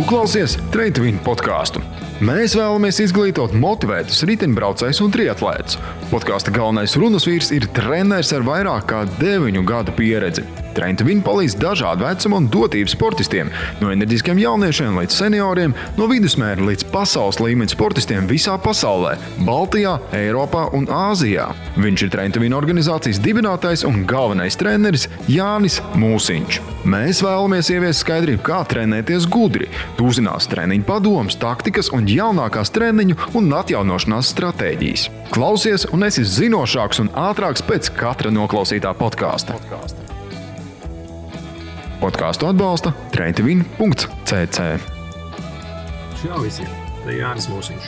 klausies Train to Win podkāstu. Mēs vēlamies izglītot motivētus riteņbraucējus un triatlētus. Podkāsta galvenais runas vīrs ir treneris ar vairāk kā 9 gadu pieredzi. Train to Win palīdz dažādu vecumu un dotību sportistiem, no enerģiskiem jauniešiem līdz senioriem, no vidusmēra līdz pasaules līmeņa sportistiem visā pasaulē, Baltijā, Eiropā un Āzijā. Viņš ir Train to Win organizācijas dibinātājs un galvenais treneris Jānis Mūsiņš. Mēs vēlamies ieviest skaidrību, kā trenēties gudri. Tu uzzinās treniņu padomus, taktikas un jaunākās treniņu un atjaunošanās stratēģijas. Klausies un esi zinošāks un ātrāks pēc katra noklausītā podkāsta. Podkāstu atbalsta traintowin.cc. Čau visiem, te Jānis Mūsiņš.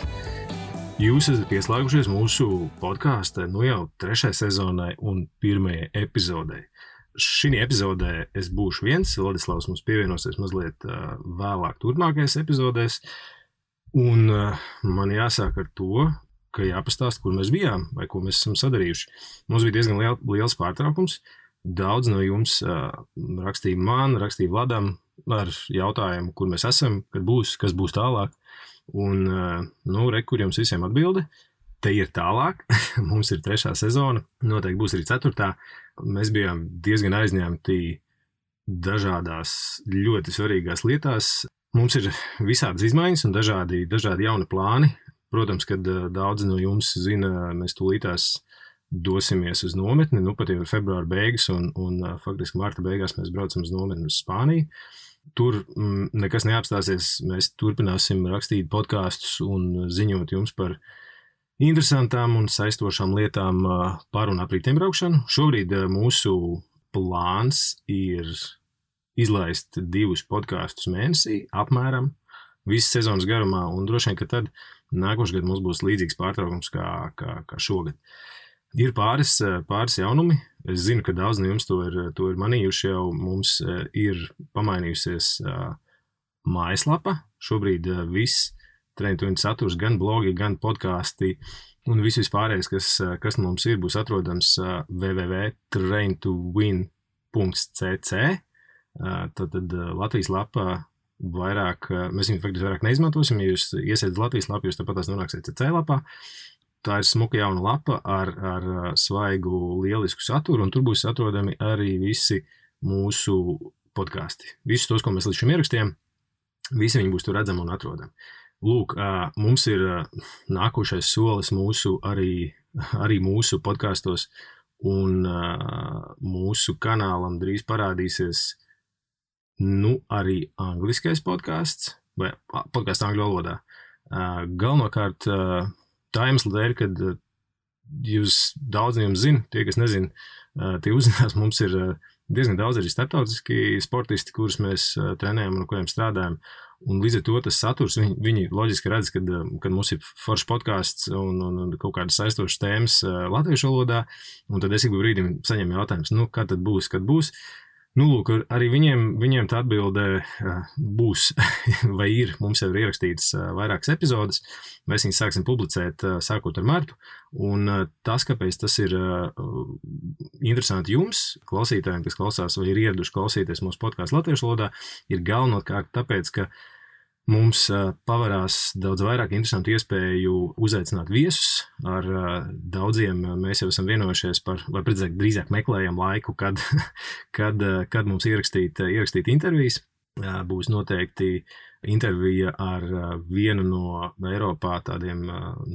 Jūs esat pieslēgušies mūsu podkāsta jau 3. sezonai un 1. epizodei. Šī epizodē es būšu viens, Vladislavs mums pievienosies mazliet vēlāk turpmākajās epizodēs. Un man jāsāk ar to, ka jāpastāst, kur mēs bijām vai ko mēs esam sadarījuši. Mums bija diezgan liels pārtraukums. Daudz no jums rakstīja man, rakstīja Vladam ar jautājumu, kur mēs esam, kad būs, kas būs tālāk. Un, kur jums visiem atbilde. Te ir tālāk. Mums ir 3. sezona, noteikti būs arī 4. Mēs bijām diezgan aizņemti dažādās ļoti svarīgās lietās. Mums ir visādas izmaiņas un dažādi jauni plāni. Protams, kad daudzi no jums zina, mēs tūlītās dosimies uz nometni, pat jau ir februāra beigas un faktiski marta beigās mēs braucam uz nometni uz Spāniju. Tur nekas neapstāsies, mēs turpināsim rakstīt podkāstus un ziņot jums par interesantām un saistošām lietām par un ap riteņbraukšanu. Šobrīd mūsu plāns ir izlaist 2 podkāstus mēnesī, apmēram visas sezonas garumā, un droši vien, ka tad nākošais gads mums būs līdzīgs pārtraukums kā šogad. Ir pāris jaunumi. Es zinu, ka daudz no jums to ir manījuši jau. Mums ir pamainījusies mājaslapa. Šobrīd viss Train to Win saturs, gan blogi, gan podkāsti un viss vispārējais, kas mums ir, būs atrodams www.traintowin.cc. Tad Latvijas lapa vairāk, mēs viņu faktiski vairāk neizmantosim. Ja jūs iesēdat Latvijas lapu, jūs tāpatās nonāksiet CC lapā. Tā ir smuka jauna lapa ar svaigu, lielisku saturu, un tur būs atrodami arī visi mūsu podkāsti. Visus tos, ko mēs līdz šim ierakstījām, visi viņi būs tur redzami un atrodami. Lūk, mums ir nākošais solis arī mūsu podkāstos, un mūsu kanālam drīz parādīsies arī angliskais podkāsts, vai podkāsts angļu valodā. Galvenokārt tā iemesla dēļ, kad jūs daudz no jums zina, tie, kas nezina, tie uzzinās, mums ir diezgan daudz arī starptautiski sportisti, kurus mēs trenējam un ar kuriem strādājam. Un līdz ar to tas saturs, viņi loģiski redz, kad mums ir foršs podkāsts un kaut kādas saistošas tēmas latviešu valodā, un tad es ik brīdim saņemu jautājums, kad tad būs, kad būs. Lūk, arī viņiem tā atbilde būs vai ir. Mums jau ir ierakstītas vairākas epizodes. Mēs viņus sāksim publicēt sākot ar martu. Un tas, kāpēc tas ir interesanti jums, klausītājiem, kas klausās vai ir ieraduši klausīties mūsu podkāstu latviešu valodā, ir galvenokārt tāpēc, ka mums pavarās daudz vairāk interesantu iespēju uzaicināt viesus. Ar daudziem mēs jau esam vienojušies par, vai drīzāk meklējam laiku, kad mums ierakstīt intervijas. Būs noteikti intervija ar vienu no Eiropā tādiem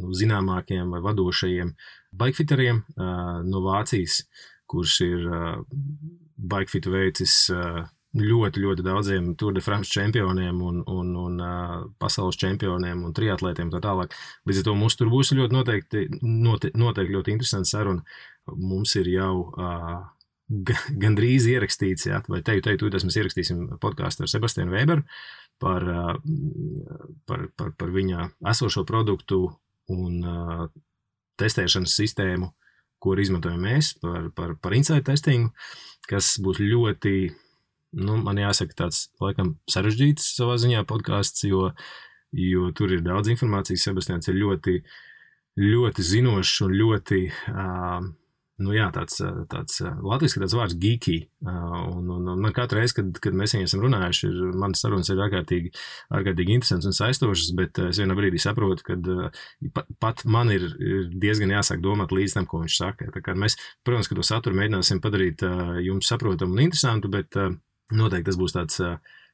zināmākiem vai vadošajiem bikefiteriem no Vācijas, kurš ir bikefitu veicis ļoti, ļoti daudziem Tour de France čempioniem un pasaules čempioniem un triatlētiem tā tālāk. Līdz ar to mums tur būs ļoti noteikti ļoti interesants saruna. Mums ir jau gandrīz ierakstīts, vai tūlīt mēs ierakstīsim podkāstu ar Sebastianu Weberu par viņa esošo produktu un testēšanas sistēmu, ko izmantojam mēs par insight testingu, kas būs ļoti man jāsaka tāds, laikam, sarežģīts savā ziņā podkāsts, jo tur ir daudz informācijas. Sebastians ir ļoti, ļoti zinošs un ļoti tāds latviski tāds vārds geeky. Un man katru reizi, kad mēs viņu esam runājuši, manas sarunas ir ārkārtīgi interesants un saistošas, bet es vienā brīdī saprotu, ka pat man ir diezgan jāsāk domāt līdz tam, ko viņš saka. Tā kā mēs, protams, ka to saturu mēģināsim padarīt jums saprotamu un interesantu, bet noteikti tas būs tāds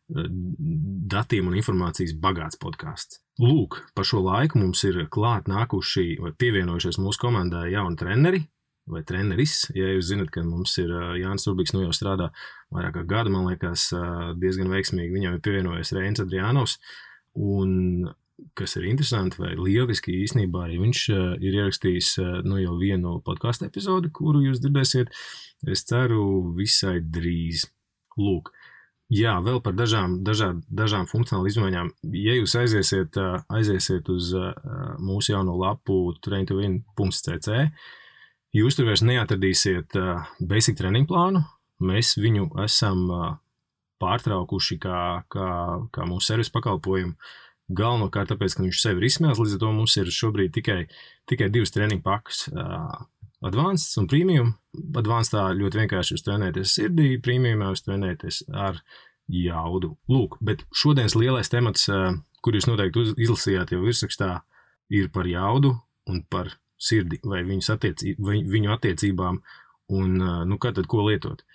datiem un informācijas bagāts podcasts. Lūk, par šo laiku mums ir klāt nākuši vai pievienojušies mūsu komandā jauni treneri vai treneris. Ja jūs zinat, ka mums ir Jānis Urbiks, jau strādā vairāk kā gadu, man liekas, diezgan veiksmīgi. Viņam ir pievienojies Reinis Adrianovs, un kas ir interesanti vai lieliski īstenībā arī viņš ir ierakstījis jau vienu podcastu epizodi, kuru jūs dzirdēsiet, es ceru, visai drīz. Lūk. Jā, vēl par dažām funkcionālu izmaiņām. Ja jūs aiziesiet uz mūsu jauno lapu train2win.cc, jūs tur vairs neatradīsiet basic training plānu. Mēs viņu esam pārtraukuši kā mūsu servisa pakalpojumu. Galvenokārt tāpēc, ka viņš sevi ir izsmēlis, līdz ar to mums ir šobrīd tikai 2 treniņu pakas. Advanced un Premium. Advancedā ļoti vienkārši jūs trenēties sirdī, Premiumā jūs trenēties ar jaudu. Lūk, bet šodienas lielais temats, kur jūs noteikti izlasījāt jau virsrakstā, ir par jaudu un par sirdi vai viņu attiecībām un kā tad ko lietot.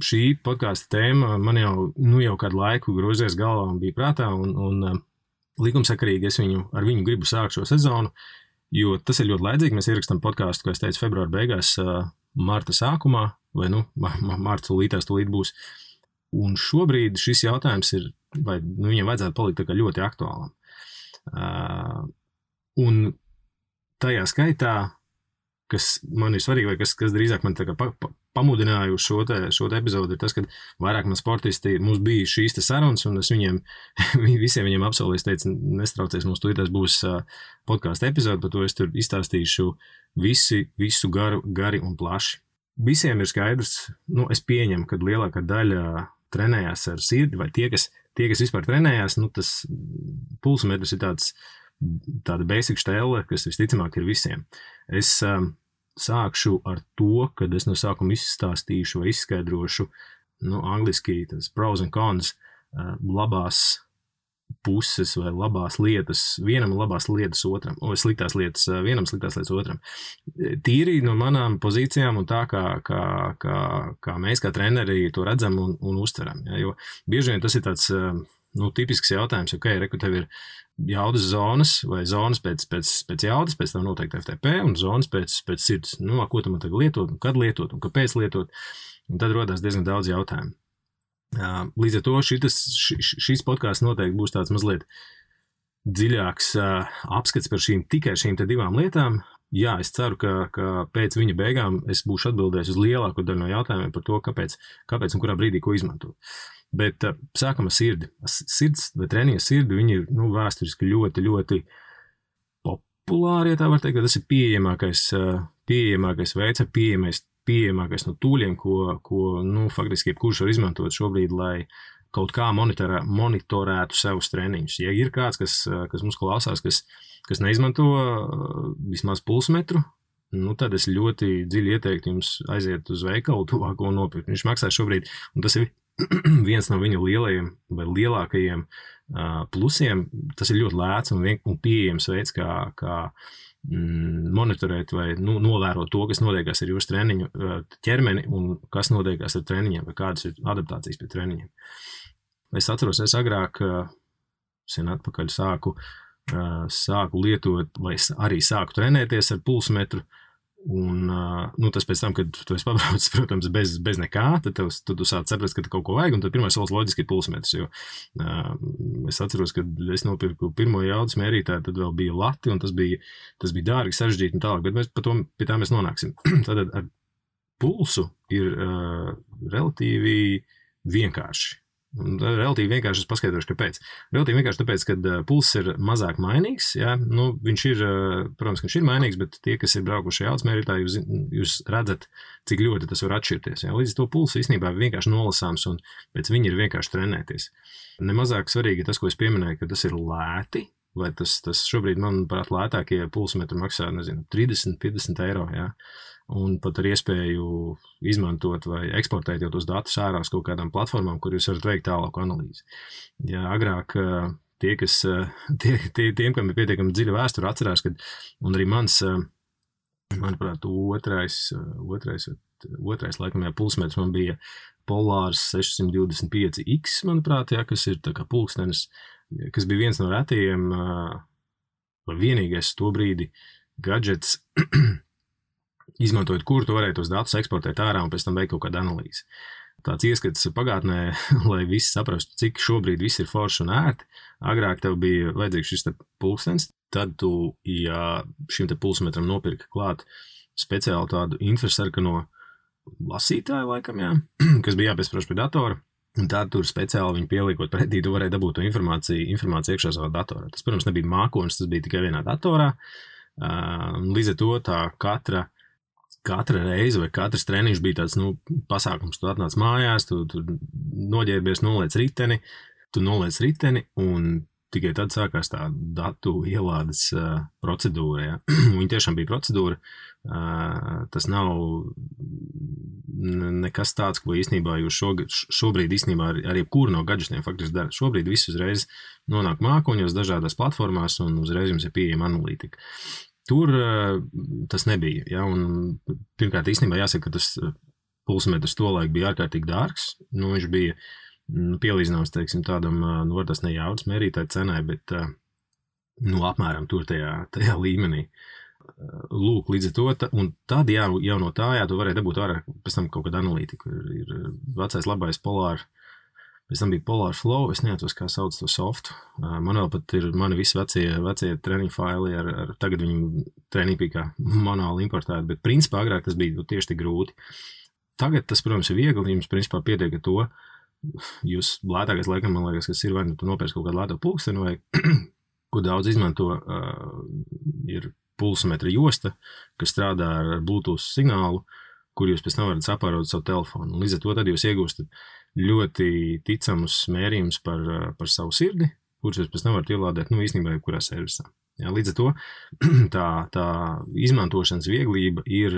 Šī podkāsta tēma man jau kādu laiku grozies galvā un bija prātā un likumsakarīgi es ar viņu gribu sākt šo sezonu, jo tas ir ļoti laidzīgi. Mēs ierakstām podkāstu, kā es teicu, februāra beigās, marta sākumā, vai marta tūlīt būs. Un šobrīd šis jautājums ir, vai viņam vajadzētu palikt tā kā ļoti aktuālam. Un tajā skaitā, kas man ir svarīgi, vai kas drīzāk man tā kā pamudināja uz šo te epizodu, ir tas, ka vairāk man sportisti, mums bija šīs te sarunas, un es visiem viņiem apsolīju, es teicu, nestraucies, mums tūlītās būs podkāsta epizode, par to es tur izstāstīšu visu gari un plaši. Visiem ir skaidrs, es pieņemu, ka lielākā daļa trenējās ar sirdi, vai tie, kas vispār trenējās, tas pulsmetrs ir tāda basic štēle, kas visticamāk ir visiem. Es sākšu ar to, kad es no sākuma izstāstīšu vai izskaidrošu, angliski tas pros and cons, labās puses vai labās lietas vienam un labās lietas otram, sliktās lietas vienam, sliktās lietas otram. Tīri no manām pozīcijām un tā, kā mēs kā treneri to redzam un uztveram. Ja, jo bieži vien tas ir tāds tipisks jautājums, reku tev ir jaudas zonas vai zonas pēc jaudas, pēc tam noteikti FTP un zonas pēc sirds. Ko tu man tagad lietot, un kad lietot, un kāpēc lietot, un tad rodās diezgan daudz jautājumu. Līdz ar to šīs podkāsts noteikti būs tāds mazliet dziļāks apskats par tikai šīm te 2 lietām. Jā, es ceru, ka pēc viņa beigām es būšu atbildējis uz lielāko daļu no jautājumiem par to, kāpēc un kurā brīdī ko izmantot. Bet sākam ar sirdi. Sirds vai treniņa sirdi, viņi ir vēsturiski ļoti, ļoti populāri, ja tā var teikt, ka tas ir pieejamākais veids, pieejamākais no tūļiem, ko faktiski jebkurš var izmantot šobrīd, lai kaut kā monitorētu savus treniņus. Ja ir kāds, kas mums klausās, kas neizmanto vismaz pulsmetru, tad es ļoti dziļi ieteiktu jums aiziet uz veikalu tuvāko un nopirkt. Viņš maksā šobrīd, un tas ir viens no viņu lielajiem vai lielākajiem plusiem. Tas ir ļoti lēts un pieejams veids, kā monitorēt vai novērot to, kas notiekās ar jūsu treniņu ķermeni un kas notiekās ar treniņiem vai kādas ir adaptācijas pie treniņiem. Es atceros, es agrāk sen atpakaļ sāku lietot vai arī sāku trenēties ar pulsmetru un tas pēc tam, kad tu esi pabraucis, protams, bez nekā, tad tu sāc saprast, ka kaut ko vajag, un tad pirmais solis loģiski ir pulsmetrs, jo es atceros, kad es nopirku pirmo jaudas mērītāju, tad vēl bija lati, un tas bija dārgi, sarežģīti un tālāk, bet pie tā mēs nonāksim. Tātad ar pulsu ir relatīvi vienkārši. Relatīvi vienkārši es paskaidrošu, kāpēc. Relatīvi vienkārši tāpēc, ka pulss ir mazāk mainīgs. Ja? Viņš ir, protams, ka viņš ir mainīgs, bet tie, kas ir braukuši jaudas mērītā, jūs redzat, cik ļoti tas var atšķirties. Ja? Līdz to pulsu īstenībā ir vienkārši nolasāms un pēc viņa ir vienkārši trenēties. Nemazāk svarīgi ir tas, ko es pieminēju, ka tas ir lēti, vai tas šobrīd, manuprāt, lētākie pulsmetri maksā, 30-50 eiro. Ja? un pat ar iespēju izmantot vai eksportēt jau tos datus ārā uz kaut kādām platformām, kur jūs varat veikt tālāku analīzi. Ja agrāk tiem, kam ir pietiekami dziļa vēsture, atcerās, kad, un arī manuprāt, otrais laikam, pulsmetrs man bija Polārs 625X, manuprāt, kas ir tā kā pulkstenis, kas bija viens no retajiem, vai vienīgais to brīdi gadžets, izmantojot, kur tu varēji tos datus eksportēt ārā un pēc tam veikt kaut kādu analīzi. Tāds ieskats pagātnē, lai visi saprastu, cik šobrīd viss ir forši un ērti. Agrāk tev bija vajadzīgs šis te pulkstenis, tad tu, ja šim te pulsmetram nopirka klāt speciāli tādu infrasarkano lasītāju laikam, kas bija jāpiesprāž pie datora, un tad tur speciāli viņu pieliekot pretī, tu varēji dabūt to informāciju iekšā savā datorā. Tas, protams, nebija mākonis, tas bija tikai vienā datorā. Līdz ar to tā katra reize vai katrs treniņš bija tāds, pasākums. Tu atnāc mājās, tu noģērbies, noliec riteni, un tikai tad sākās tā datu ielādes procedūra. Ja? Viņa tiešām bija procedūra. Tas nav nekas tāds, ko īstenībā jūs šobrīd īstenībā ar jebkuru no gadžetiem faktiski dara. Šobrīd viss uzreiz nonāk mākoņos dažādās platformās un uzreiz jums ir pieejama analītika. Tur tas nebija. Ja? Un, pirmkārt, īstenībā jāsaka, ka tas pulsmetrs tolaik bija ārkārtīgi dārgs. Viņš bija pielīdzināms, teiksim, tādam, var tas ne jaudas mērītāju cenai, bet apmēram tur tajā līmenī. Lūk, līdz ar to, un tad jau no tā, tu varēji dabūt ārā pēc tam kaut kādu analītiku. Ir vecais labais Polar, pēc tam bija Polar Flow, es neatceros, kā sauc to softu. Man vēl pat ir mani visi vecie treniņu faili, tagad viņi treniņi bija kā manuāli importēti, bet principā agrāk tas bija tieši tik grūti. Tagad tas, protams, ir viegli, jums principā pietiek ar to, jūs lētākais laikam, man liekas, kas ir vai tu nopērci kaut kādu lēto pulksteni vai ko daudz izmanto, ir pulsmetra josta, kas strādā ar Bluetooth signālu, kur jūs pēc tam varat sapārot savu telefonu. Līdz ar to tad jūs iegūstat ļoti ticamus mērījumus par savu sirdi, kurus jūs pēc tam varat ielādēt, īstenībā jebkurā servisā. Ja, līdz ar to tā izmantošanas vieglība ir,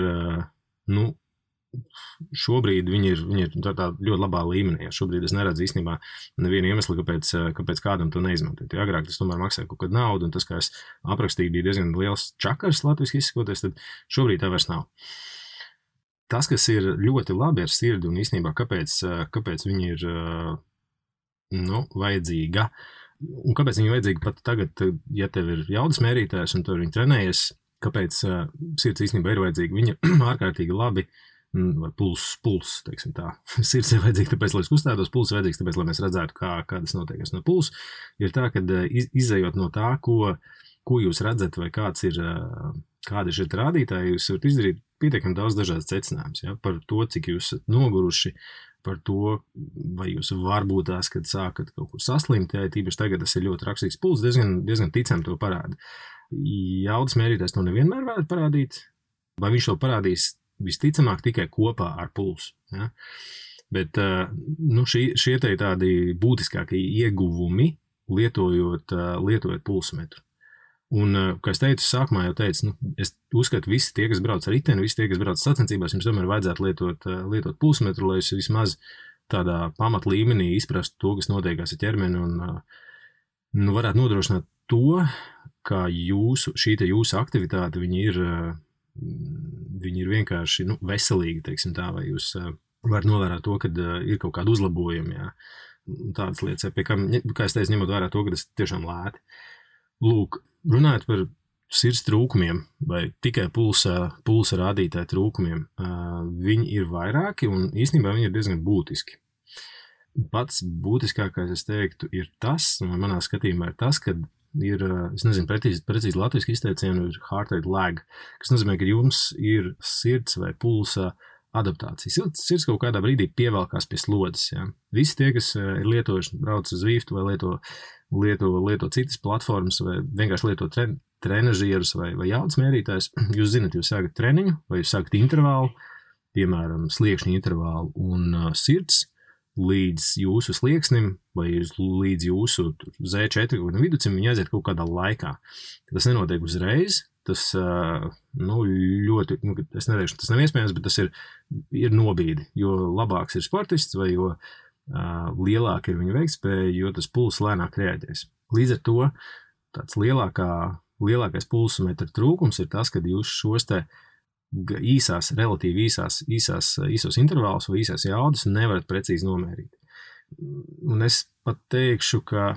šobrīd viņi ir tā ļoti labā līmenī. Ja šobrīd es neredzu īstenībā nevienu iemeslu, kāpēc kādam to neizmantot. Ja agrāk tas tomēr maksāja kaut kādu naudu, un tas, kā es aprakstīju, bija diezgan liels čakars latviski izsakoties, tad šobrīd tā vairs nav. Tas, kas ir ļoti labi ar sirdi, un īstenībā kāpēc viņi ir vajadzīga, un kāpēc viņi ir vajadzīga pat tagad, ja tev ir jaudas mērītājs, un tu viņi trenējies, kāpēc sirds īstenībā ir vajadzīga. Viņi ir ārkārtīgi labi, vai puls, teiksim tā. Sirds ir vajadzīga tāpēc, lai es kustētos, puls ir vajadzīgs tāpēc, lai mēs redzētu, kā tas notiek. No puls ir tā, ka izējot no tā, ko jūs redzat, vai kādi ir šie rādītāji, jūs varat izdarīt pietiekami daudz dažādas secinājumus, ja? Par to, cik jūs esat noguruši, par to, vai jūs varbūt tās, kad sākat kaut kur saslimt, ja tīpaši tagad tas ir ļoti rakstīgs puls, diezgan ticam to parāda. Jaudas mērītājs to nevienmēr varētu parādīt, vai viņš to parādīs visticamāk tikai kopā ar pulsu. Ja? Bet šie tādi būtiskākie ieguvumi lietojot pulsmetru. Un, kā es teicu, sākumā jau teicu, es uzskatu, visi tie, kas brauc ar riteni, visi tie, kas brauc sacensībās, jums tomēr vajadzētu lietot pulsmetru, lai jūs vismaz tādā pamat līmenī izprastu to, kas notiekās ar ķermeni un varētu nodrošināt to, ka jūsu aktivitāte, viņi ir vienkārši veselīgi, teiksim tā, vai jūs varat novērāt to, kad ir kaut kādi uzlabojumi, jā, tādas lietas, pie kā es teicu, ņemot vērā to, ka tas tiešām lēti. Lūk, runājot par sirds trūkumiem vai tikai pulsa rādītāju trūkumiem, viņi ir vairāki un īstenībā viņi ir diezgan būtiski. Pats būtiskākais, es teiktu, ir tas, un manā skatījumā ir tas, ka ir, es nezinu, precīzi latviski izteicienu, ir heart rate lag, kas nozīmē, ka jums ir sirds vai pulsa adaptācija. Sirds kaut kādā brīdī pievelkās pie slodzes. Ja? Visi tie, kas ir lietojuši, brauc uz Zwift vai lieto citas platformas vai vienkārši lieto trenažierus vai jaudas mērītājus, jūs zinat, jūs sākat treniņu vai jūs sākat intervālu, piemēram, sliekšņu intervālu un sirds līdz jūsu slieksnim vai līdz jūsu Z4 viducim, viņi aiziet kaut kādā laikā. Tas nenotiek uzreiz, tas ļoti, es neteikšu, tas nav iespējams, bet tas ir nobīdi, jo labāks ir sportists vai jo lielāka ir viņa veiktspēja, jo tas pulss lēnāk reaģēs. Līdz ar to tāds lielākais pulsometra trūkums ir tas, kad jūs šos te relatīvi īsos intervālus vai īsās jaudas nevarat precīzi nomērīt. Un es pat teikšu, ka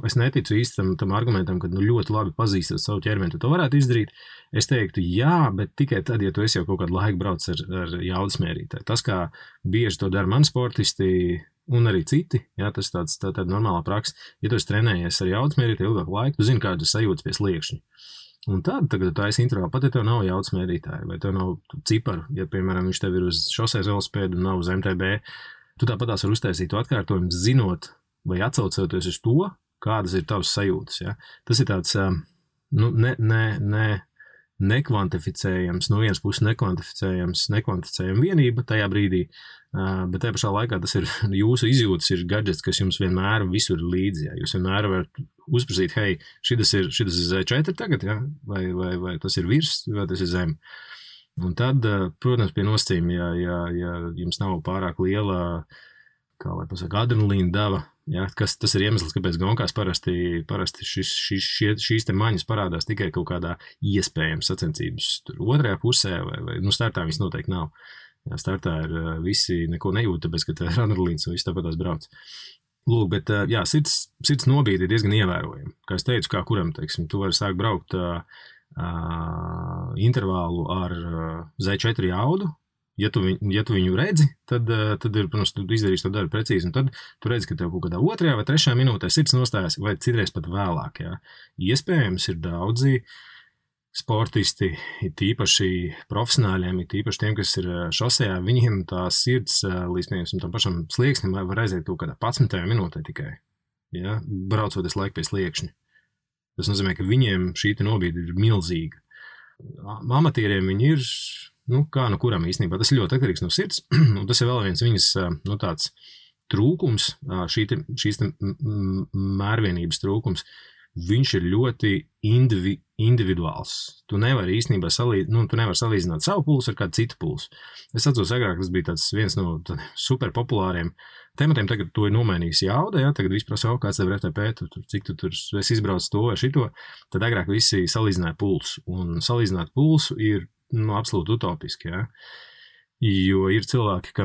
es neticu īsti tam argumentam, ka ļoti labi pazīstot savu ķermeni, tu to varētu izdarīt. Es teiktu, jā, bet tikai tad, ja tu esi jau kaut kādu laiku brauc ar jaudas mērītāju. Tas, kā bieži to dara mani sportisti un arī citi, jā, tas tāda normālā praksa. Ja tu esi trenējies ar jaudas mērītāju ilgāku laiku, tu zini, kādas sajūtas pie sliekšņa. Un tad, tagad tu esi intervālu, pat ja tev nav jaudas mērītāja vai tev nav ciparu, ja, piemēram, viņš tev ir uz šoseis velosipēdu un nav uz MTB, tu tāpatās var uztaisīt to atkārtojumu, zinot vai atsaucoties uz to, kādas ir tavas sajūtas. Ja? Tas ir tāds nekvantificējams, no vienas puses nekvantificējama vienība tajā brīdī, bet tajā pašā laikā tas ir jūsu izjūtas, ir gadgets, kas jums vienmēr visur ir līdzi. Ja? Jūs vienmēr varat uzprasīt, hei, šitas ir Z4 tagad, ja? vai tas ir virs, vai tas ir zem. Un tad, protams, pie nosacījuma, ja jums nav pārāk liela, kā lai pasaka, adrenalīna deva, ja, tas ir iemesls, kāpēc gonkās parasti šīs te maņas parādās tikai kaut kādā iespējams sacensības otrajā pusē, vai startā viņas noteikti nav. Ja, startā ir visi neko nejūt, tāpēc, ka ir adrenalīns un viss tāpatās brauc. Lūk, bet jā, sirds nobīde ir diezgan ievērojama. Kā es teicu, kā kuram, teiksim, tu vari sākt braukt intervālu ar Z4 jaudu. Ja tu viņu redzi, tad ir, protams, tu izdarīsi to darbu precīzi, un tad tu redzi, ka tev kaut kādā 2. vai 3. minūtē sirds nostājas, vai citreiz pat vēlāk. Jā. Iespējams ir daudzi sportisti, ir tīpaši profesionāļiem, ir tīpaši tiem, kas ir šosejā, viņiem tā sirds līdz, piemēram, tam pašam slieksnim var aiziet kaut kādā 11. minūtē tikai, ja, braucoties laiku pie sliekšņa. Tas nozīmē, ka viņiem šī nobīde ir milzīga. Amatieriem viņi ir, kā no kuram īstenībā, tas ir ļoti atkarīgs no sirds, un tas ir vēl viens viņas, tāds trūkums, šīs mērvienības trūkums, viņš ir ļoti individuāls. Tu nevari īstenībā salīdzināt savu pulsu ar kādu citu pulsu. Es atceros, agrāk tas bija tāds viens no super populāriem tematiem, tagad to ir nomainījis jauda, ja, tagad visi prasa, kāds tev ir FTP, cik tu tur esi izbraucis to vai šito, tad agrāk visi salīdzināja pulsu, un salīdzināt pulsu ir absolūti utopiski, ja, jo ir cilvēki,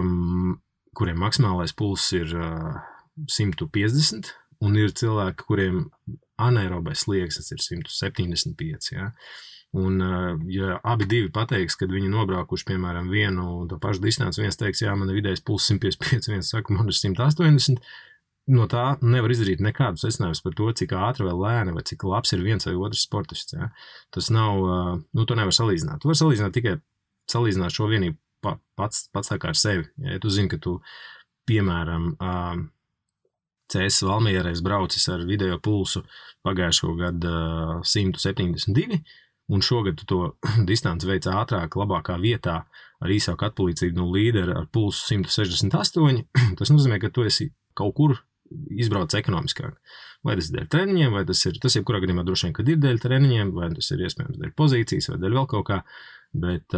kuriem maksimālais pulss ir 150, un ir cilvēki, kuriem anaerobais slieksnis ir 175, ja. Un, ja abi divi pateiks, kad viņi nobraukuši, piemēram, vienu to pašu distanci, viens teiks, jā, man ir vidējais pulss 155, viens saka, man ir 180, no tā nevar izdarīt nekādu secinājumus par to, cik ātri vai lēni, vai cik labs ir viens vai otrs sportists, ja. Tas nav, to nevar salīdzināt. Tu var salīdzināt tikai salīdzināt šo vienību pats tā kā ar sevi. Ja tu zini, ka tu, piemēram, CS Valmierais braucis ar vidējo pulsu pagājušo gadu 172, un šogad tu to distanci veic ātrāk, labākā vietā ar īsāku atpalīdzību no līdera ar pulsu 168. Tas nozīmē, ka tu esi kaut kur izbrauc ekonomiskāk. Vai tas ir dēļ treniņiem, vai tas jebkurā gadījumā droši vien, kad ir dēļ treniņiem, vai tas ir iespējams dēļ pozīcijas, vai dēļ vēl kaut kā. Bet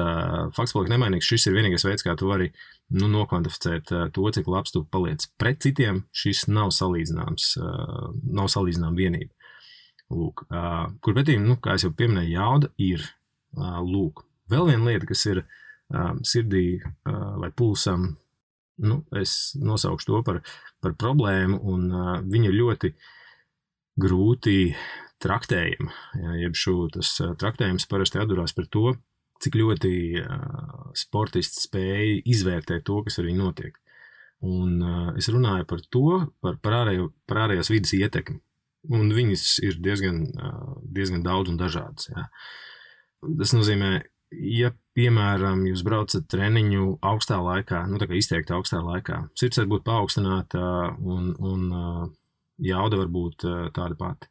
fakts paliek nemainīgs, šis ir vienīgais veids, kā tu vari nokvantificēt to, cik labs tu paliec pret citiem. Šis nav salīdzināms vienība. Lūk, kur pretī, kā es jau pieminēju, jauda ir. Lūk, vēl viena lieta, kas ir sirdī vai pulsam, es nosaukšu to par problēmu, un viņa ļoti grūti traktējama. Jeb tas traktējums parasti atdurās par to, cik ļoti sportists spēja izvērtēt to, kas ar viņu notiek. Un es runāju par to, par ārējās vidas ietekmi. Un viņas ir diezgan daudz un dažādas. Jā. Tas nozīmē, ja, piemēram, jūs braucat treniņu augstā laikā, tā kā izteikti augstā laikā, sirds var būt paaugstināta un jauda var būt tāda pati.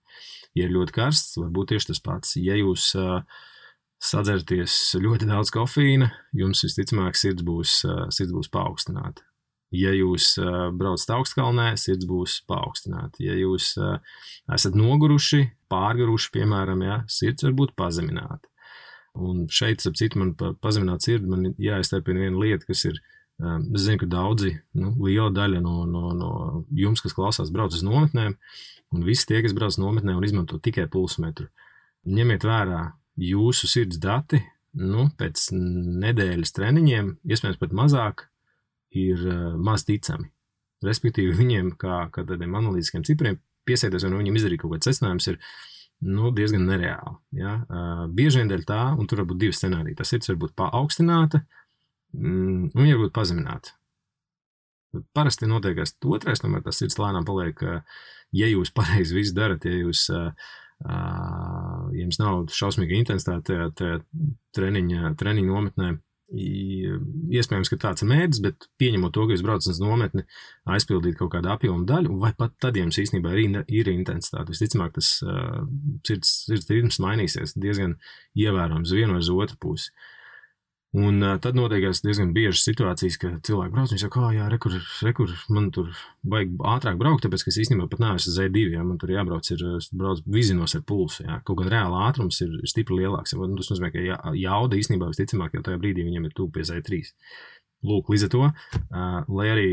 Ja ir ļoti karsts, var būt tieši tas pats. Ja jūs sadzerties ļoti daudz kofīna, jums visticamāk sirds būs paaugstināta. Ja jūs braucat augstkalnē, sirds būs paaugstināta. Ja jūs esat noguruši, pārguruši, piemēram, ja, sirds var būt pazemināta. Un šeit, ap citu, man pazemināt sirdi, man jāiztērpina viena lieta, kas ir, es zinu, ka daudzi, liela daļa no jums, kas klausās, brauc uz nometnēm, un visi tie, kas brauc nometnē un izmanto tikai pulsmetru. Ņemiet vērā jūsu sirds dati, pēc nedēļas treniņiem, iespējams pat mazāk, ir maz ticami. Respektīvi viņiem, kā tādiem analītiskiem cipriem, piesēties, vai viņiem izdarīt kaut kāds secinājums, ir diezgan nereāli. Ja? Bieži vien dēļ tā, un tur var būt divi scenāriji. Tas sirds var būt paaugstināta, un viņa var būt pazemināta. Parasti notiekās otrais, tomēr tas sirds lēnām paliek, ja jūs pareizi visu darat, ja jums nav šausmīga intensitāte tajā treniņa nometnē, iespējams, ka tāds ir mērķis, bet pieņemot to, ka jūs braucat uz nometni, aizpildīt kaut kādu apjomu daļu, vai pat tad jums īstenībā ir intensitāte. Visticamāk, tas sirds ritms mainīsies diezgan ievērojams vienu vai uz otru pusi. Un tad notiekās diezgan biežas situācijas, ka cilvēki brauc, viņi saka, jā, rekur, man tur vajag ātrāk braukt, tāpēc, ka es īstenībā pat neesmu uz Z2, ja, man tur jābrauc, brauc vizinos ar pulsu, ja. Kaut gan reāla ātrums ir stipri lielāks, ja. Tas nozīmē, ka jauda īstenībā visticamāk, jau tajā brīdī viņam ir tuvu pie Z3. Lūk, līdz ar to, lai arī,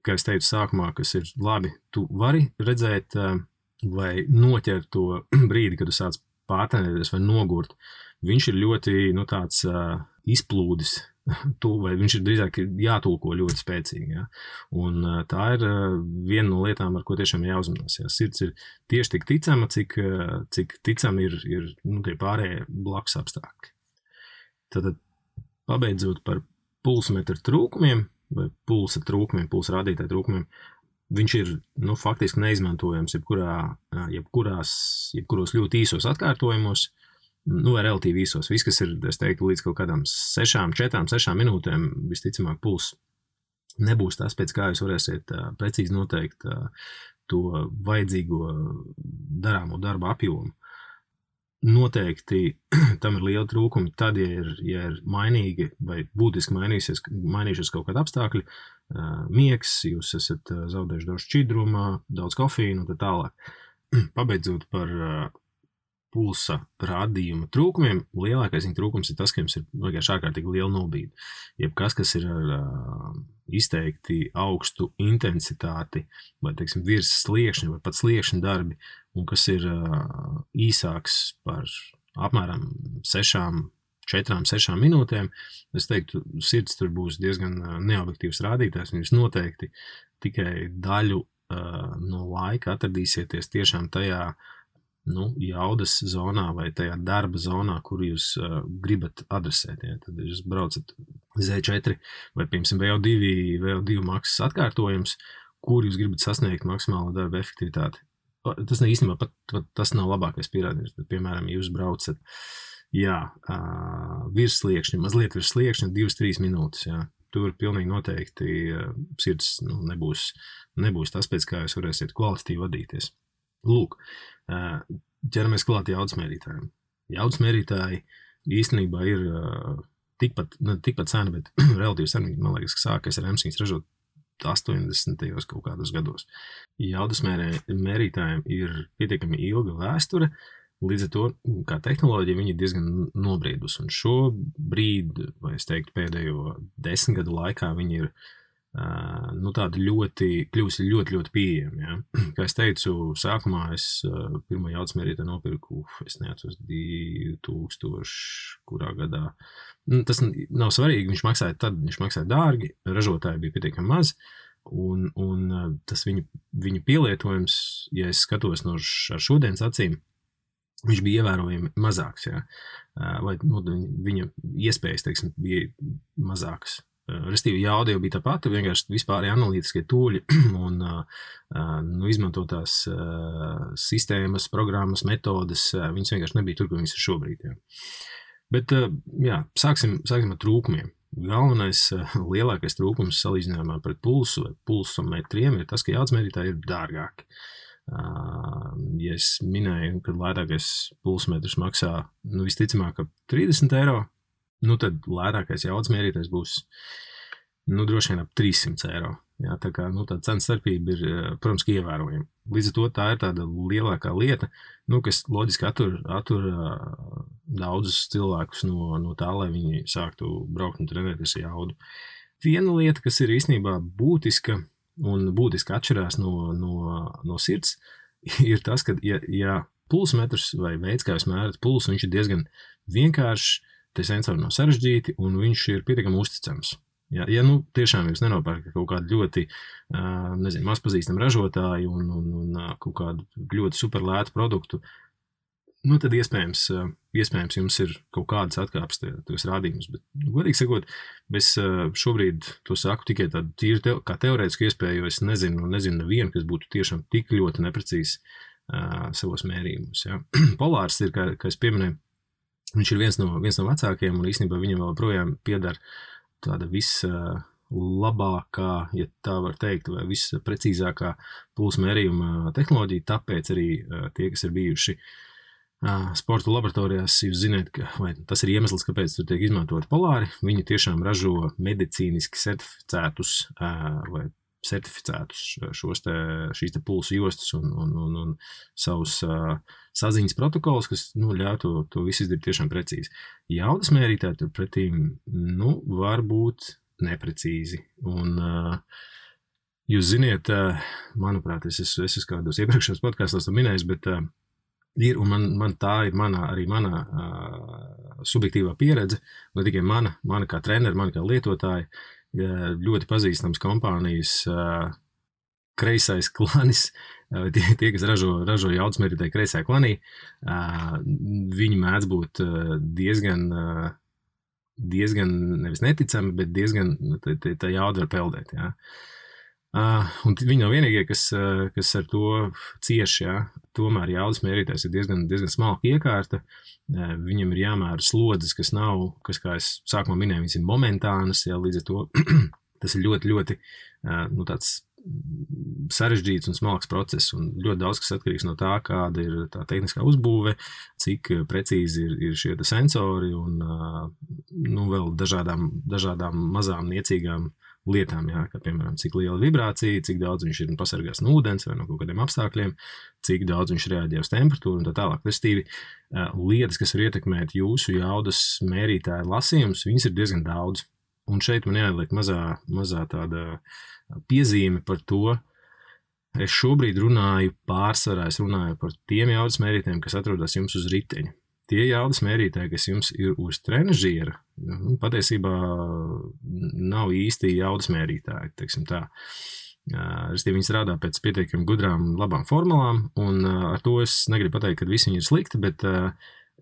kā es teicu sākumā, kas ir labi, tu vari redzēt vai noķert to brīdi, kad tu sāc pārtrenēties vai nogurt, viņš ir ļoti, tāds izplūdis, vai viņš ir drīzāk jātulko ļoti spēcīgi. Ja? Un tā ir viena no lietām, ar ko tiešām jāuzmanās. Ja? Sirds ir tieši tik ticama, cik ticami ir tie pārējie blakus apstākļi. Tad pabeidzot par pulsmetru trūkumiem, vai pulsa trūkumiem, pulsa rādītāju trūkumiem, viņš ir faktiski neizmantojams jebkuros ļoti īsos atkārtojumos, vai relatīvi īsos. Viss, kas ir, es teiktu, līdz kaut kādām 4-6 minūtēm, visticamāk, puls nebūs tas, pēc kā jūs varēsiet precīzi noteikt to vajadzīgo darāmo darba apjomu. Noteikti tam ir liela trūkumi tad, ja ir mainīgi vai būtiski mainījušies kaut kādi apstākļi, miegs, jūs esat zaudējuši daudz šķidruma, daudz kofīnu un tā tālāk. Pabeidzot par pulsa rādījuma trūkumiem, lielākais viņa trūkums ir tas, ka jums ir vienkārši ārkārtīgi liela nobīde. Jebkas, kas ir ar izteikti augstu intensitāti, vai, teiksim, virs sliekšņa, vai pat sliekšņa darbi, un kas ir īsāks par apmēram 4-6 minūtēm, es teiktu, sirds tur būs diezgan neobjektīvs rādītājs, un jūs noteikti tikai daļu no laika atradīsieties tiešām tajā jaudas zonā vai tajā darba zonā, kur jūs gribat adresēt. Ja? Tad jūs braucat Z4 vai, piemēram, VO2 maksas atkārtojums, kur jūs gribat sasniegt maksimālo darba efektivitāti. Tas īstenībā pat tas nav labākais pierādījums, bet, piemēram, jūs braucat virs sliekšņa, mazliet virs sliekšņa 2-3 minūtes. Ja? Tur pilnīgi noteikti sirds nebūs tas, pēc kā jūs varēsiet kvalitatīvi vadīties. Lūk, ķeramies klāt jaudas mērītājiem. Jaudas mērītāji īstenībā ir tikpat seni, bet relatīvi seni, man liekas, ka sākās ar emsīņas ražot 80. kaut kādos gados. Jaudas mērītājiem ir pietiekami ilga vēsture, līdz ar to, kā tehnoloģija, viņi ir diezgan nobriedus. Un šobrīd, vai es teiktu, pēdējo 10 gadu laikā viņi ir tādi kļūsi ļoti pieejami. Ja? Kā es teicu, sākumā es pirmo jaudas mērītāju nopirku, es neatceros 2000, kurā gadā. Tas nav svarīgi, viņš maksāja dārgi, ražotāji bija pietiekami maz, un tas viņu pielietojums, ja es skatos ar šodienas acīm, viņš bija ievērojami mazāks, ja? Vai viņa iespējas, teiksim, bija mazākas. Restīvi, jauda jau bija tā pati, vienkārši vispār analītiskie tūļi un izmantotās sistēmas, programmas, metodes, viņas vienkārši nebija tur, kur viņas ir šobrīd. Jā. Bet, sāksim ar trūkumiem. Galvenais, lielākais trūkums salīdzinājumā pret pulsu vai pulsometriem ir tas, ka jaudas mērītāji ir dārgāki. Ja es minēju, ka lētākais pulsmetrs maksā, visticamāk, ap 30 eiro, tad lētākais jaudas mērītājs būs droši vien ap 300 eiro. Jā, tā kā tā cenu starpība ir, protams, ievērojama. Līdz ar to tā ir tāda lielākā lieta, kas loģiski attur daudzus cilvēkus no tā, lai viņi sāktu braukt un trenēties jaudu. Viena lieta, kas ir īstenībā būtiska un būtiski atšķirās no sirds, ir tas, ka, ja pulsmetrs vai veids, kā jūs mērat pulsu, viņš ir diezgan vienkāršs, tie sensori nav sarežģīti un viņš ir pietiekami uzticams. Ja tiešām jūs nenopērkat kaut kādu ļoti, mazpazīstamu ražotāju un kaut kādu ļoti superlētu produktu, tad iespējams jums ir kaut kādas atkāpes tos rādījumus, bet, godīgi sakot, es šobrīd to saku tikai tādu tīri kā teorētisku iespēju, jo es nezinu nevienu, kas būtu tiešām tik ļoti neprecīzi savos mērījumus. Ja. Polārs ir, kā es pieminēju, viņš ir viens no vecākiem, un īstenībā viņam vēl projām piedara tāda labākā, ja tā var teikt, vai visprecīzākā pulsu mērījuma tehnoloģija, tāpēc arī tie, kas ir bijuši sporta laboratorijās, jūs zināt, vai tas ir iemesls, kāpēc tur tiek izmantot polāri, viņi tiešām ražo medicīniski certificētus šīs pulsu jostas un savus saziņas protokolus, kas ļauj to visu izdarīt tiešām precīzi. Jaudas mērītāji tur pretīm var būt neprecīzi. Un jūs ziniet, manuprāt, es esmu kādos iepriekšējos podkastos to minējis, bet ir, un man tā ir mana subjektīvā pieredze, ne tikai mana kā treneri, mana kā lietotāja, ļoti pazīstams kompānijas kreisais klanis, tie, kas ražo jaudas mērītāju kreisajā klanī, viņi mēdz būt diezgan nevis neticami, bet diezgan tā jauda var peldēt. Jā. Un viņi nav vienīgie, kas ar to cieši, jā. Tomēr jaudas mērītājs ir diezgan smalka iekārta, viņam ir jāmēra slodzes, kas, kā es sākumā minēju, viņas ir momentānas, jā, līdz ar to tas ir ļoti, ļoti tāds sarežģīts un smalks process, un ļoti daudz, kas atkarīgs no tā, kāda ir tā tehniskā uzbūve, cik precīzi ir šie sensori un vēl dažādām mazām niecīgām lietām, jā, kā piemēram, cik liela vibrācija, cik daudz viņš ir pasargās no ūdens vai no kaut kādiem apstākļiem, cik daudz viņš reaģē uz temperatūru un tā tālāk. Restīvi, lietas, kas var ietekmēt jūsu jaudas mērītāju lasījumus, viņas ir diezgan daudz. Un šeit man jāieliek mazā tāda piezīme par to. Es šobrīd runāju pārsvarā par tiem jaudas mērītājiem, kas atrodas jums uz riteņa. Tie jaudas mērītāji, kas jums ir uz trenažiera, patiesībā nav īsti jaudas mērītāji, teiksim tā. Viņi strādā pēc pietiekami gudrām, labām formulām, un ar to es negribu pateikt, ka visi viņi ir slikti, bet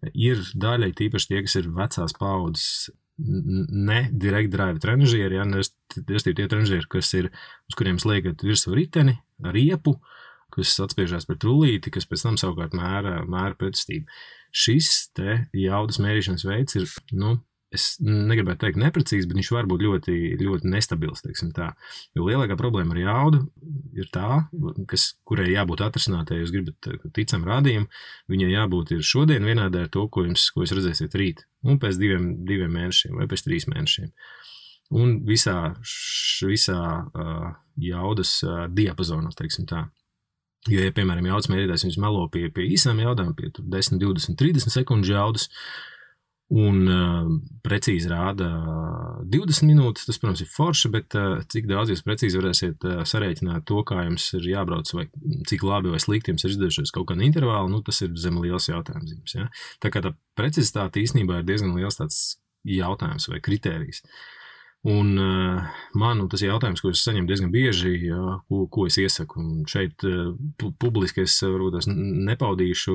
ir daļai tīpaši tie, kas ir vecās paudzes, ne direct drive trenažieri, ja, tie trenažieri, uz kuriem sliekat virsū riteni, riepu, kas atspiežās pret rullīti, kas pēc tam savukārt mēra pretestību. Šis te jaudas mērīšanas veids ir, es negribētu teikt neprecīzi, bet viņš var būt ļoti, ļoti nestabils, teiksim tā. Jo lielākā problēma ar jaudu ir tā, kurai jābūt atrisinātai, jūs gribat ticam rādījumu, viņai jābūt ir šodien vienādai ar to, ko jūs redzēsiet rīt, un pēc diviem mēnešiem vai pēc 3 mēnešiem. Un visā jaudas diapazonā, teiksim tā. Jo, ja, piemēram, jaudas mērītājs viņš melo pie īsām jaudām, pie 10, 20, 30 sekundžu jaudas, un precīzi rāda 20 minūtes, tas, protams, ir forši, bet cik daudz jūs precīzi varēsiet sarēķināt to, kā jums ir jābrauc, vai cik labi vai slikti jums ir izdevušies kaut kāda intervāla, tas ir zem liels jautājums jums. Ja? Tā kā tā precizitāte īstenībā ir diezgan liels tāds jautājums vai kritērijs. Un tas ir jautājums, ko es saņemu diezgan bieži, ko es iesaku. Un šeit publiski es varbūt nepaudīšu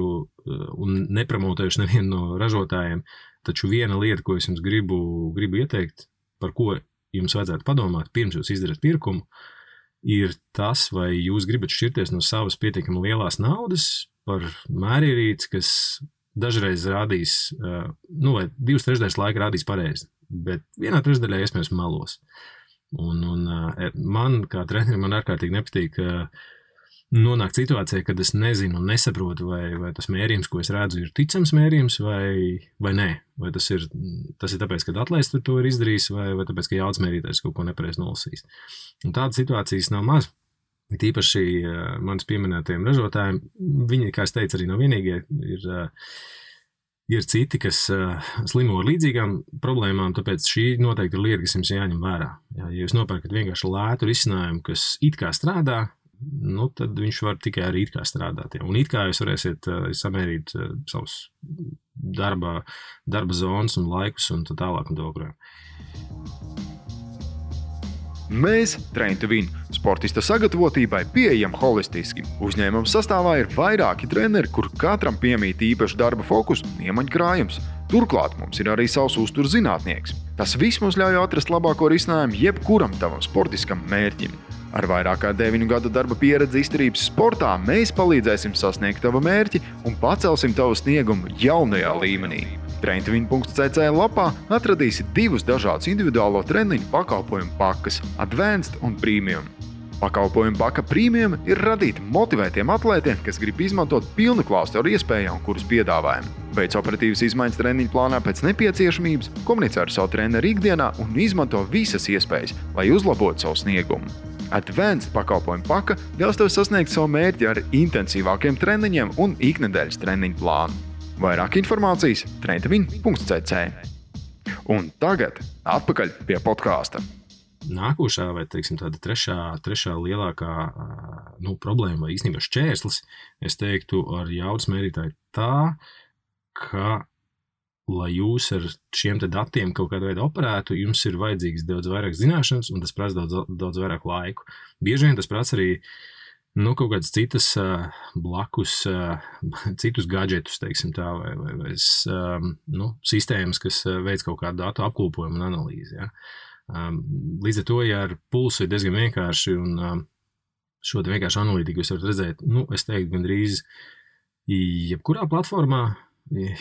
un nepromotēšu nevienu no ražotājiem, taču viena lieta, ko es jums gribu ieteikt, par ko jums vajadzētu padomāt, pirms jūs izdarat pirkumu, ir tas, vai jūs gribat šķirties no savas pietiekami lielās naudas par mērierīci, kas dažreiz rādīs, vai 2/3 laika rādīs pareizi. Bet 1/3 iespējams melos. Un man, kā trenerim, man ārkārtīgi nepatīk nonākt situācijā, kad es nezinu un nesaprotu, vai tas mērījums, ko es redzu, ir ticams mērījums vai nē. Vai tas ir tāpēc, ka atlēsts to ir izdarījis, vai tāpēc, ka jaudas mērītājs kaut ko nepareizi nolasījis. Un tādas situācijas nav maz. Tīpaši manis pieminētajiem ražotājiem, viņi, kā es teicu, arī nav vienīgie, ir citi, kas slimo ar līdzīgām problēmām, tāpēc šī noteikti ir lieta, kas jums jāņem vērā. Ja jūs nopērkat vienkārši lētu risinājumu, kas it kā strādā, tad viņš var tikai arī it kā strādāt. Ja. Un it kā jūs varēsiet samērīt savus darba zonas un laikus un tā tālāk un tā. Mēs, Train to Win, sportista sagatavotībai pieejam holistiski. Uzņēmuma sastāvā ir vairāki treneri, kur katram piemīt īpaši darba fokus un iemaņu krājums. Turklāt mums ir arī savs uzturs zinātnieks. Tas viss mums ļauj atrast labāko risinājumu jebkuram tavam sportiskam mērķim. Ar vairāk kā 9 gadu darba pieredzi izturības sportā mēs palīdzēsim sasniegt tavu mērķi un pacelsim tavu sniegumu jaunajā līmenī. Traintvin.cc lapā atradīsi 2 dažādus individuālo treniņu pakalpojumu pakas – Advanced un Premium. Pakalpojumu paka Premium ir radīta motivētiem atlētiem, kas grib izmantot pilnu klāstu ar iespējām, kuras piedāvājam. Veic operatīvas izmaiņas treniņu plānā pēc nepieciešamības, komunicē ar savu treneru ikdienā un izmanto visas iespējas, lai uzlabotu savu sniegumu. Advanced pakalpojumu paka ļaus tev sasniegt savu mērķi ar intensīvākiem treniņiem un iknedēļas treniņu plānu. Vairāk informācijas traintvin.cc. Un tagad atpakaļ pie podkāsta. Nākošā vai, teiksim, tāda trešā lielākā problēma vai īstenībā šķērslis, es teiktu, ar jaudas mērītāju tā, ka, lai jūs ar šiem te datiem kaut kādā veidā operētu, jums ir vajadzīgs daudz vairāk zināšanas un tas prasa daudz vairāk laiku. Bieži vien tas prasa arī kaut kādas citas blakus, citus gadžetus, teiksim tā, vai sistēmas, kas veic kaut kādu datu apkopojumu un analīzi. Ja. Līdz ar to, ja ar pulsu ir diezgan vienkārši un šo te vienkārši analītiku jūs varat redzēt, es teiktu, gandrīz jebkurā platformā,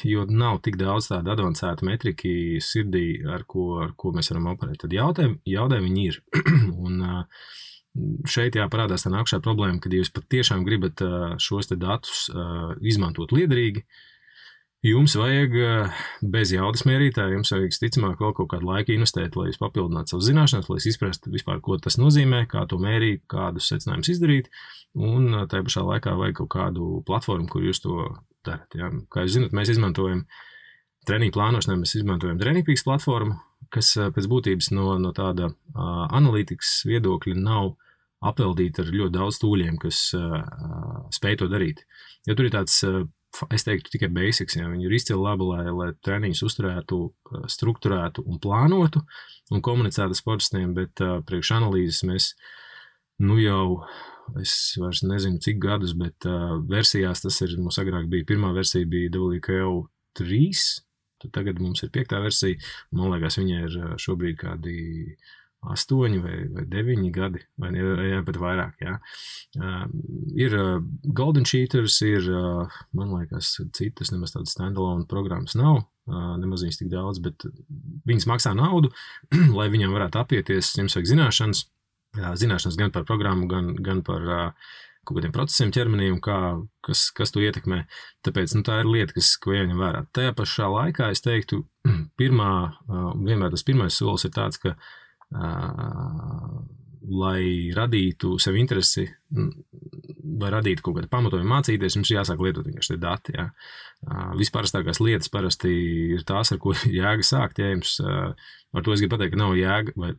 jo nav tik daudz tādu advancētu metriki sirdī, ar ko mēs varam operēt. Tad jaudē viņi ir. Un šeit parādās tā nākušā problēma, kad jūs pat tiešām gribat šos te datus izmantot liederīgi, jums vajag bez jaudas mērītāja, jums vajag ticamāk vēl kaut kādu laiku investēt, lai jūs papildinātu savu zināšanas, lai jūs izprastu vispār, ko tas nozīmē, kā to mērīt, kādus secinājumus izdarīt, un tajā pašā laikā vajag kaut kādu platformu, kur jūs to darat. Ja. Kā jūs zināt, mēs izmantojam treniņu plānošanai, mēs izmantojam TrainingPeaks platformu, kas pēc būtības no tāda analītikas viedokļa nav apveldīta ar ļoti daudz tūļiem, kas spēj to darīt. Jo tur ir tāds, es teiktu, tikai basics, ja viņi ir izcili labi, lai treniņus uzturētu, strukturētu un plānotu un komunicētu sportistiem, bet priekš analīzes mēs es vairs nezinu cik gadus, bet versijās tas ir, mums agrāk bija, pirmā versija bija WKO 3, tad tagad mums ir 5. versija, un man liekas, viņai ir šobrīd kādi 8 vai 9 gadi, vai pat vairāk, jā. Ir Golden Cheaters, ir, man liekas, citas, nemaz tādas standalone programmas nav, nemaz viņas tik daudz, bet viņas maksā naudu, lai viņam varētu apieties, jums vajag zināšanas gan par programmu, gan par kaut kādiem procesiem ķermenī un kas to ietekmē. Tāpēc tā ir lieta, ko jāņem vērā. Tajā pašā laikā es teiktu, vienmēr tas pirmais solis ir tāds, ka lai radītu sev interesi vai radītu kaut kādu pamatojumu mācīties, jums jāsāk lietot vienkārši tie dati. Ja. Visparastākās lietas parasti ir tās, ar ko jēga sākt. Ja jums, ar to es gribu pateikt, ka nav jēga vai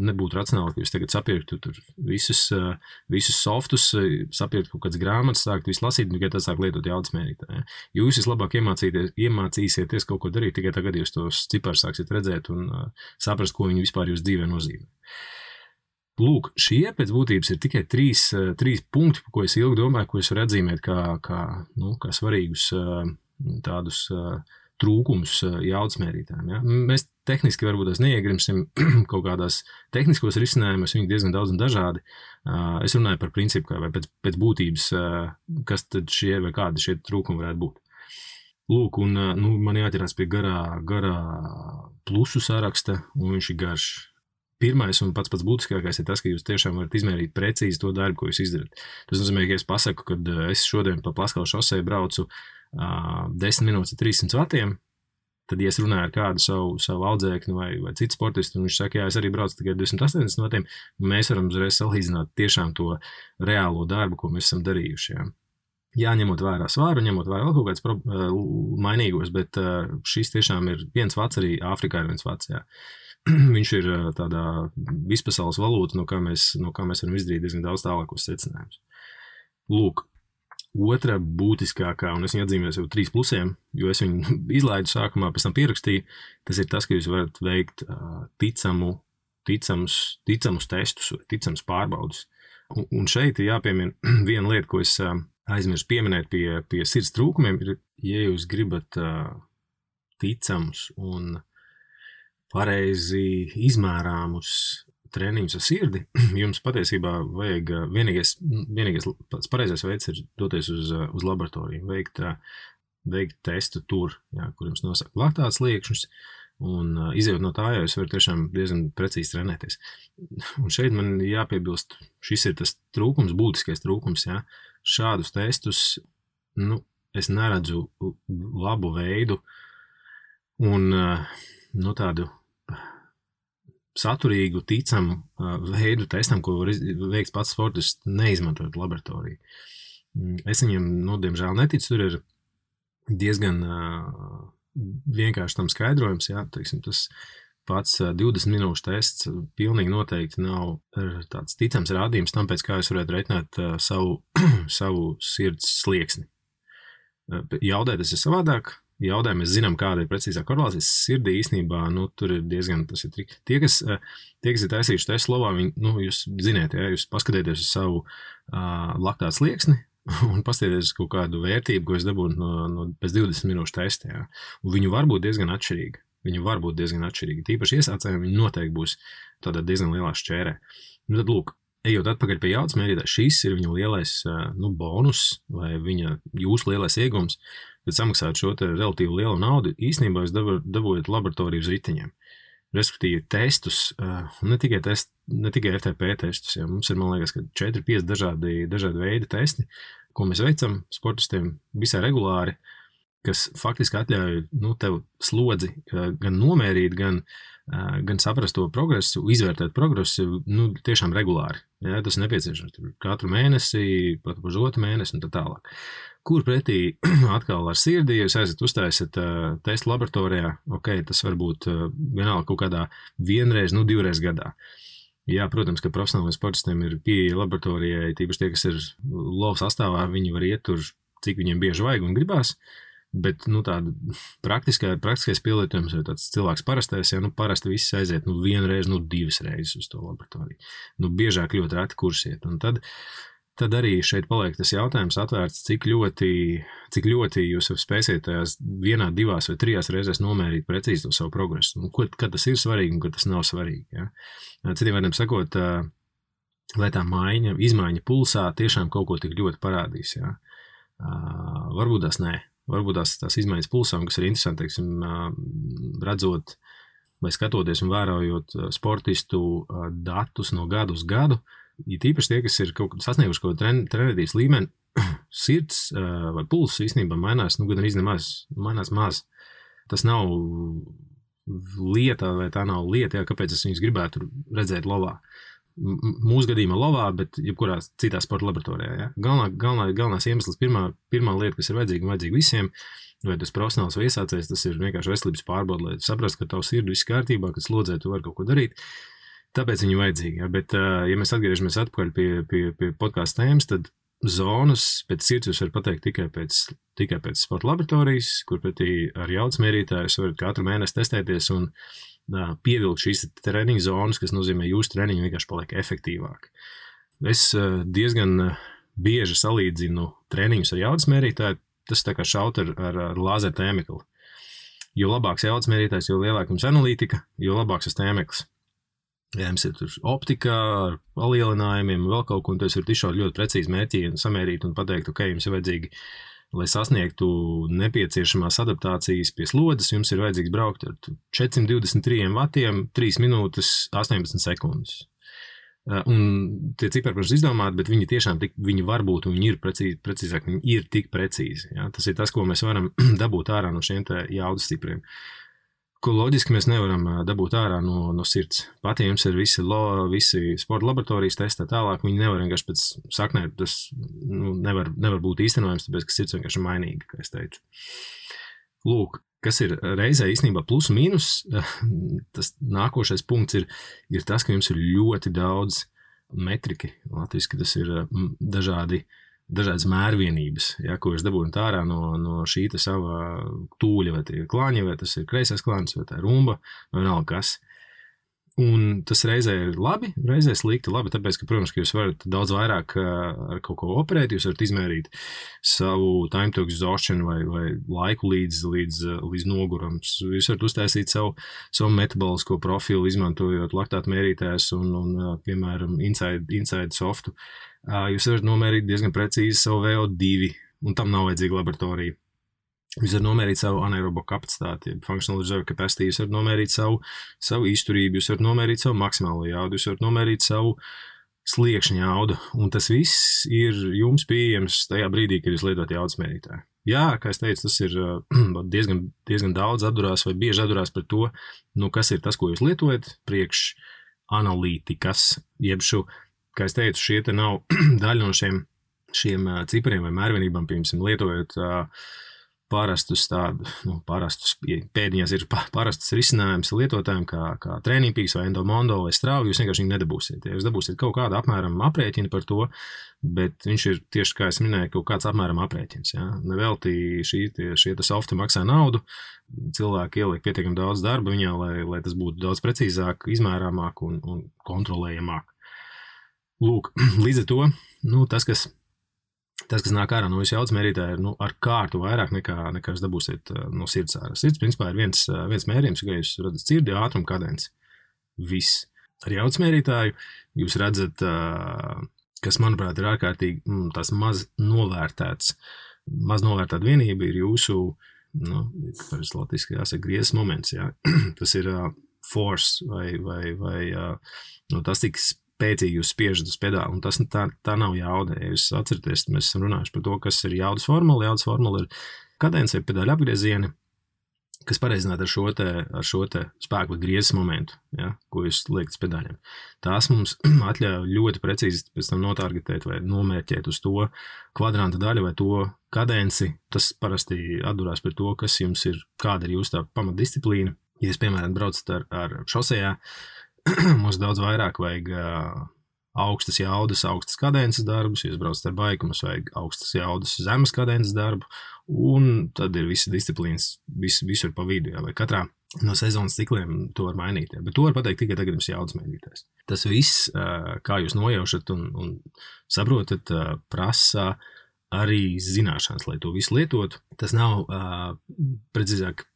nebūtu racionāli, ka jūs tagad sapirktu tur visus softus, sapirktu kaut kādas grāmatas, sākt visu lasīt, tikai tad sāk lietot jaudas mērītāju. Ja. Jūs vislabāk iemācīsieties kaut ko darīt, tikai tagad jūs tos ciparus sāksiet redzēt un saprast, ko viņi vispār jūs dzīvē nozīmē. Lūk, šie pēc būtības ir tikai trīs punkti, ko es ilgi domāju, ko es varu atzīmēt kā svarīgus tādus trūkumus jaudas mērītājiem. Ja? Mēs tehniski varbūt neiegrimsim kaut kādās tehniskos risinājumus, viņi diezgan daudz un dažādi. Es runāju par principu, vai pēc būtības, kas tad šie vai kādi šie trūkumi varētu būt. Lūk, un man jāķerās pie garā plusu saraksta, un viņš ir garš. pirmais un pats būtiskākais ir tas, ka jūs tiešām varat izmērīt precīzi to darbu, ko jūs izdarat. Tas nozīmē, ka es pasaku, ka es šodien pa Plaskalu šosei braucu 10 minūtes ar 300 vatiem, tad, ja es runāju ar kādu savu audzēkni vai citu sportistu, un viņš saka, jā, es arī braucu tikai 280 vatiem, mēs varam uzreiz salīdzināt tiešām to reālo darbu, ko mēs esam darījuši. Jā, ņemot vērā svāru, ņemot vērā vēl kaut kāds mainīgos, bet šis tiešām ir 1 vats, arī Āfrikā ir 1 vats, jā. Viņš ir tādā vispasaules valūta, no kā mēs varam izdarīt diezgan daudz tālākos secinājumus. Lūk, otra būtiskākā, un es viņu atzīmēju jau 3 plusiem, jo es viņu izlaidu sākumā, pēc tam pierakstīju, tas ir tas, ka jūs varat veikt ticamus testus, ticamus pārbaudus. Un šeit ir jāpiemina viena lieta, ko es aizmirsu pieminēt pie sirds trūkumiem, ir, ja jūs gribat ticamus un pareizi izmērāmus treniņus ar sirdi, jums patiesībā vajag vienīgais pareizais veids ir doties uz laboratoriju, veikt testu tur, jā, kur jums nosaka laktāts liekšņus, un izejot no tā, ja jūs varat tiešām diezgan precīzi trenēties. Un šeit man jāpiebilst, šis ir tas trūkums, būtiskais trūkums, jā. Šādus testus, es neredzu labu veidu un tādu saturīgu, ticamu veidu testam, ko var veikt pats sportists, neizmantojot laboratoriju. Es viņam, diemžēl neticu, tur ir diezgan vienkārši tam skaidrojums, jā, teiksim, tas pats 20 minūšu tests pilnīgi noteikti nav tāds ticams rādījums tam, pēc kā jūs varētu reiķināt savu sirds slieksni. Jaudē tas ir savādāk. Jaudē mēs zinām, kāda ir precīzā korelācija. Sirdī īstenībā, tur ir diezgan, tas ir triki. Tie, kas ir taisījuši testu slovā, jūs ziniet, ja, jūs paskatieties uz savu laktātu slieksni un paskatieties uz kaut kādu vērtību, ko es dabūnu pēc 20 minūšu testa, ja. Un viņu var būt diezgan atšķirīgi. Tīpaši iesācējiem viņi noteikti būs tādā diezgan lielā šķērē. Tad, lūk, ejot atpakaļ pie jaudas mērītāja, šis ir viņa lielais bonus vai jūsu lielais iegums, kad samaksāt šo te relatīvi lielu naudu, īstenībā jūs dabūjat laboratoriju uz riteņiem. Respektīvi testus, ne tikai FTP testus, ja, mums ir, man liekas, ka 4-5 dažādi veidi testi, ko mēs veicam sportistiem visai regulāri, kas faktiski atļauj tev slodzi gan nomērīt, gan saprast to progresu, izvērtēt progresu tiešām regulāri. Ja, tas ir nepieciešams katru mēnesi, pat otru mēnesi un tā tālāk. Kur pretī atkal ar sirdi, ja jūs aizat uztaisat testu laboratorijā, tas var būt vienalga kaut kādā 1 reizi, 2 reizes gadā. Jā, protams, ka profesionāliem sportistiem ir pieeja laboratorijai, tīpaši tie, kas ir lova sastāvā, viņi var iet tur, cik viņiem bieži vajag un gribās. Bet tāda praktiskais pielietojums vai tāds cilvēks parastais, ja parasti viss aiziet 1 reizi, 2 reizes uz to laboratoriju. Biežāk ļoti reti kursiet. Un tad arī šeit paliek tas jautājums atvērts, cik ļoti jūs spēsiet tajās 1, 2 vai 3 reizēs nomērīt precīzi to savu progresu. Kad tas ir svarīgi un kad tas nav svarīgi. Ja? Citiem vārdiem sakot, lai tā izmaiņa pulsā tiešām kaut ko tik ļoti parādīs. Ja? Varbūt tās nē. Varbūt tās izmaiņas pulsām, kas ir interesanti, teiksim, redzot vai skatoties un vērojot sportistu datus no gadu uz gadu, ja tīpaši tie, kas ir sasnieguši kaut kādu trenētības līmeni, sirds vai pulss īstenībā mainās, gan arī mainās maz. Tas nav lieta, vai tā nav lieta, kāpēc es viņus gribētu redzēt lovā. Mūsu gadījumā lovā, bet jebkurā citā sporta laboratorijā. Ja? Galvenās iemesls, pirmā lieta, kas ir vajadzīga visiem, vai tas profesionāls vai iesācējs, tas ir vienkārši veselības pārbaude, lai saprast, ka tavu sirdi viss kārtībā, kad slodzē tu vari kaut ko darīt. Tāpēc viņi vajadzīgi. Ja? Bet, ja mēs atgriežamies atpakaļ pie podkāstu tēmas, tad zonas pēc sirds jūs varat pateikt tikai pēc sporta laboratorijas, kur pretī ar jaudas mērītājus varat katru mēnesi testēties un pievilkt šīs treniņu zonas, kas nozīmē jūsu treniņu vienkārši paliek efektīvāk. Es diezgan bieži salīdzinu treniņus ar jaudas mērītāju, tas tā kā šaut ar lāzeru tēmekli. Jo labāks jaudas mērītājs, jo lielāka jums analītika, jo labāks tas tēmeklis. Ja jums ir tur optika ar palielinājumiem, vēl kaut ko, un tu varat izšaut ļoti precīzi mērķi un samērīt un pateikt, jums ir vajadzīgi lai sasniegtu nepieciešamās adaptācijas pie slodzes, jums ir vajadzīgs braukt ar 423 vatiem, 3 minūtes, 18 sekundes. Un tie cipari, protams, izdomāti, bet viņi tiešām viņi var būt, un viņi ir precīzāk, viņi ir tik precīzi. Ja? Tas ir tas, ko mēs varam dabūt ārā no šiem te jaudas cipriem. Ko loģiski mēs nevaram dabūt ārā no sirds. Pat ja jums ir visi sporta laboratorijas testi tālāk, viņi nevar vienkārši pēc saknē, tas nevar būt īstenojams, tāpēc, ka sirds vienkārši ir mainīga, kā es teicu. Lūk, kas ir reizē īstenībā plus un mīnus, tas nākošais punkts ir tas, ka jums ir ļoti daudz metriki. Latviski tas ir dažādas mērvienības, ja, ko jūs dabūjat ārā no šī sava tūļa, vai tie ir klāņi, vai tas ir kreisais klāņs, vai tā ir rumba, vai vienalga kas. Un tas reizē ir labi, reizē slikti labi, tāpēc, ka, protams, ka jūs varat daudz vairāk ar kaut ko operēt, jūs varat izmērīt savu time to exhaustion vai laiku līdz nogurams. Jūs varat uztaisīt savu metabolisko profilu, izmantojot laktātu mērītājus un piemēram, inside softu. Jūs varat nomērīt diezgan precīzi savu VO2, un tam nav vajadzīga laboratorija. Jūs varat nomērīt savu anaerobo kapacitāti, functional reserve capacity, jūs varat nomērīt savu izturību, jūs varat nomērīt savu maksimālo jaudu, jūs varat nomērīt savu sliekšņa jaudu, un tas viss ir jums pieejams tajā brīdī, kad jūs lietot jaudas mērītāju. Jā, kā es teicu, tas ir diezgan daudz atdurās vai bieži atdurās par to, kas ir tas, ko jūs lietojat, priekš analītikas, jeb kā es teicu, šie te nav daļa no šiem cipariem vai mērvienībām, piemēram, lietojot parastus pēdiņās ir parastus risinājums lietotājiem kā Trainingpeaks vai Endomondo vai Strava, jūs vienkārši viņu nedabūsiet. Ja jūs dabūsiet kaut kādu apmēram aprēķinu par to, bet viņš ir tieši, kā es minēju, kaut kāds apmēram aprēķins. Ja? Nevelti šie softi maksā naudu, cilvēki ieliek pietiekami daudz darba viņā, lai tas būtu daudz precīzāk, izmērāmāk un kontrolējamāk. Lūk, līdz ar to, tas, kas nāk ārā no jūsu jaudas mērītāja, ir ar kārtu vairāk nekā jūs dabūsiet no sirds ārā. Sirds, principā, ir viens mērījums, ka jūs redzat sirdi, ātrumu, kadenci. Viss. Ar jaudas mērītāju jūs redzat, kas, manuprāt, ir ārkārtīgi tās maz novērtēta vienība ir jūsu, kāpēc latviski jāsaka, griezes moments. Jā. Tas ir force vai tas tiks spēcīgi jūs spiežat uz pedāli, un tas tā nav jauda. Ja jūs atceraties, mēs esam runājuši par to, kas ir jaudas formula. Jaudas formula ir kadence vai pedāļu apgriezieni, kas pareizināti ar šo te spēku vai griezes momentu, ja, ko jūs liekat uz pedāļiem. Tās mums atļauj ļoti precīzi pēc tam notargetēt vai nomērķēt uz to kvadranta daļu vai to kadenci. Tas parasti atdurās par to, kas jums ir, kāda ir jūsu tā pamatdisciplīna. Ja jūs, piemēram, braucat ar šosejā, mums daudz vairāk vajag augstas jaudas, augstas kadences darbus, ja jūs braucat ar baiku, mums vajag augstas jaudas, zemes kadences darbu, un tad ir visi disciplīnas, visur pa vidu, ja, vai katrā no sezonas cikliem to var mainīt, ja. Bet to var pateikt tikai tagad jums jaudas mērītājs. Tas viss, kā jūs nojaušat un saprotat, prasa arī zināšanas, lai to visu lietotu. Tas nav precīzāk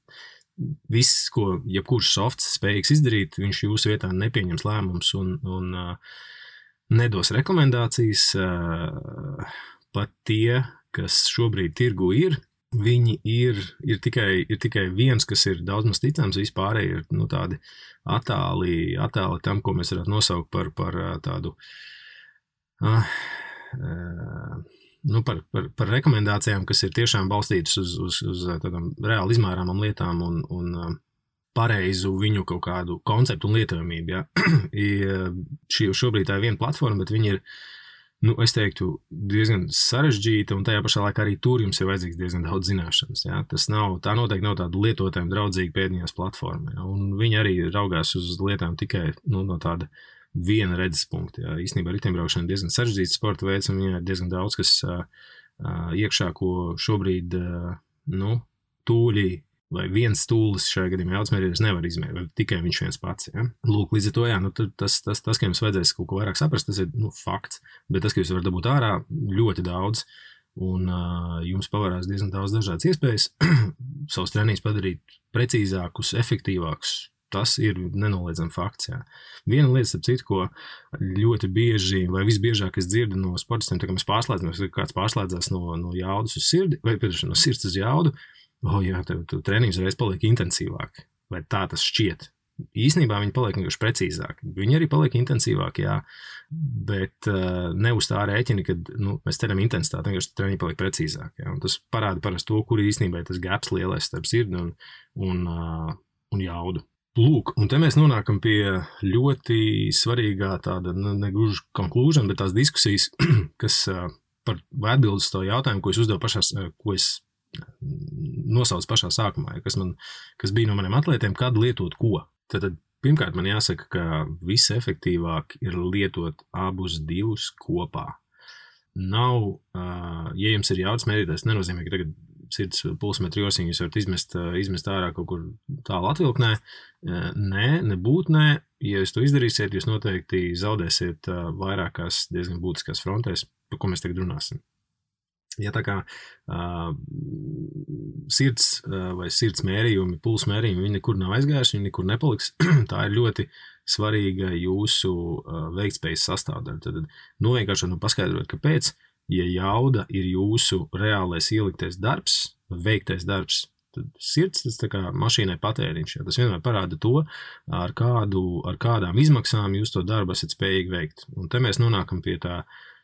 viss, ko jebkurš softs spējīgs izdarīt, viņš jūsu vietā nepieņems lēmums un nedos rekomendācijas. Pat tie, kas šobrīd tirgu ir, viņi ir tikai viens, kas ir daudz maz ticams, vispārēji ir tādi attāli tam, ko mēs varētu nosaukt par tādu par rekomendācijām, kas ir tiešām balstītas uz tādām reāli izmērāmām lietām un pareizu viņu kaut kādu konceptu un lietojamību. Ja. Šobrīd tā ir viena platforma, bet viņi ir, es teiktu, diezgan sarežģīta, un tajā pašā laikā arī tur jums ir vajadzīgs diezgan daudz zināšanas. Ja. Tā noteikti nav tāda lietotājiem draudzīga pēdiņās platforma. Ja. Un viņi arī raugās uz lietām tikai no tāda viena redzes punkta. Jā. Īstenībā riteņbraukšana ir diezgan sarežģīts sporta veids, un viņai ir diezgan daudz, kas iekšā, ko šobrīd tūļi vai viens stūlis šajā gadījumā jaudas nevar izmērīt, vai tikai viņš viens pats. Ja? Lūk, līdz ar to, tas, ka jums vajadzēs kaut ko vairāk saprast, tas ir fakts, bet tas, ka jūs varat dabūt ārā ļoti daudz, un jums pavarās diezgan daudz dažādas iespējas savus treniņus padarīt precīzākus, efektīvākus, Tas ir nenoliedzami fakts. Jā. Viena lieta, starp citu, ko ļoti bieži, vai visbiežāk es dzirdu no sportistiem, tā kā mēs pārslēdzamies, kad kāds pārslēdzās no jaudas uz sirdi, vai no sirds uz jaudu, jā, tev treniņš reiz paliek intensīvāk, vai tā tas šķiet. Īsnībā viņi paliek vienkārši precīzāki. Viņi arī paliek intensīvāki, jā, bet ne uz tā rēķina, kad mēs ceram intensitāti, vienkārši treniņi paliek precīzāki. Jā, un tas parāda parasti to, kur īstenībā ir tas gaps lielais starp sirdi un jaudu. Lūk, un te mēs nonākam pie ļoti svarīgā tāda, negluži conclusion, bet tās diskusijas, kas par atbildes to jautājumu, ko es uzdevu ko es nosaucu pašā sākumā, kas bija no maniem atlētiem, kad lietot ko. Tad pirmkārt man jāsaka, ka visefektīvāk ir lietot abus divus kopā. Nav, ja jums ir jaudas mērītājs, nenozīmē, ka tagad sirds pulsmetru josiņu jūs varat izmest ārā kaut kur tālu atvilknē. Nē. Ja jūs to izdarīsiet, jūs noteikti zaudēsiet vairākās diezgan būtiskās frontēs, par ko mēs tagad runāsim. Ja tā kā sirds vai sirds mērījumi, pulsa mērījumi, viņi nekur nav aizgājuši, viņi nekur nepaliks, tā ir ļoti svarīga jūsu veiktspējas sastāvdaļa. Tad vienkārši paskaidrot, kāpēc, ja jauda ir jūsu reālais ieliktais darbs, veiktais darbs, tad sirds tas tā kā mašīnai patēriņš. Ja? Tas vienmēr parāda to, ar kādām izmaksām jūs to darbu esat spējīgi veikt. Un te mēs nonākam pie tā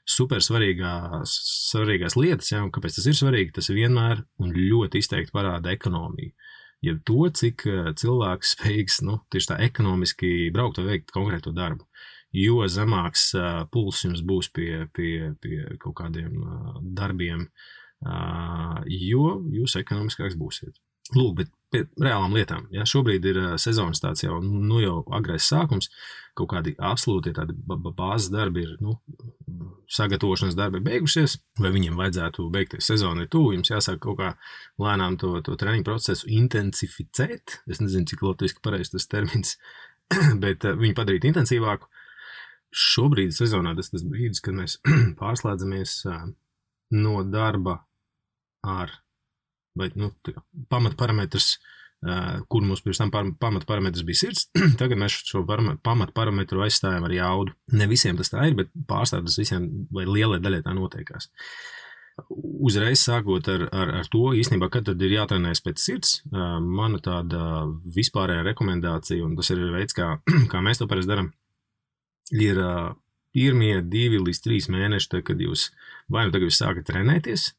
super svarīgās lietas, ja, un kāpēc tas ir svarīgi, tas vienmēr un ļoti izteikti parāda ekonomiju. Ja to, cik cilvēks spējīgs, tieši tā ekonomiski braukt vai veikt konkrēto darbu. Jo zemāks puls jums būs pie kaut kādiem darbiem, jo jūs ekonomiskāks būsiet. Lūk, bet pie reālām lietām. Ja, šobrīd ir sezonas tāds jau agrais sākums, kaut kādi absolūti tādi bāzes darbi ir, sagatavošanas darbi beigušies, vai viņiem vajadzētu beigties sezonu ir tuvu, jums jāsāk kaut kā lēnām to treniņu procesu intensificēt. Es nezinu, cik latviski pareizi tas termins, bet viņu padarīt intensīvāku. Šobrīd sezonā tas brīdis, kad mēs pārslēdzamies no darba ar vai pamatparametrs, kur mums pirms tam pamatparametrs bija sirds, tagad mēs šo pamatparametru aizstājam ar jaudu. Ne visiem tas tā ir, bet pārstāv tas visiem vai lielai daļai tā notiekās. Uzreiz sākot ar to, īstenībā, kad tad ir jātrenējas pēc sirds, mana tāda vispārējā rekomendācija, un tas ir veids, kā mēs to parasti darām, ir pirmie 2 līdz 3 mēneši, kad jūs vai tagad jūs sākat trenēties,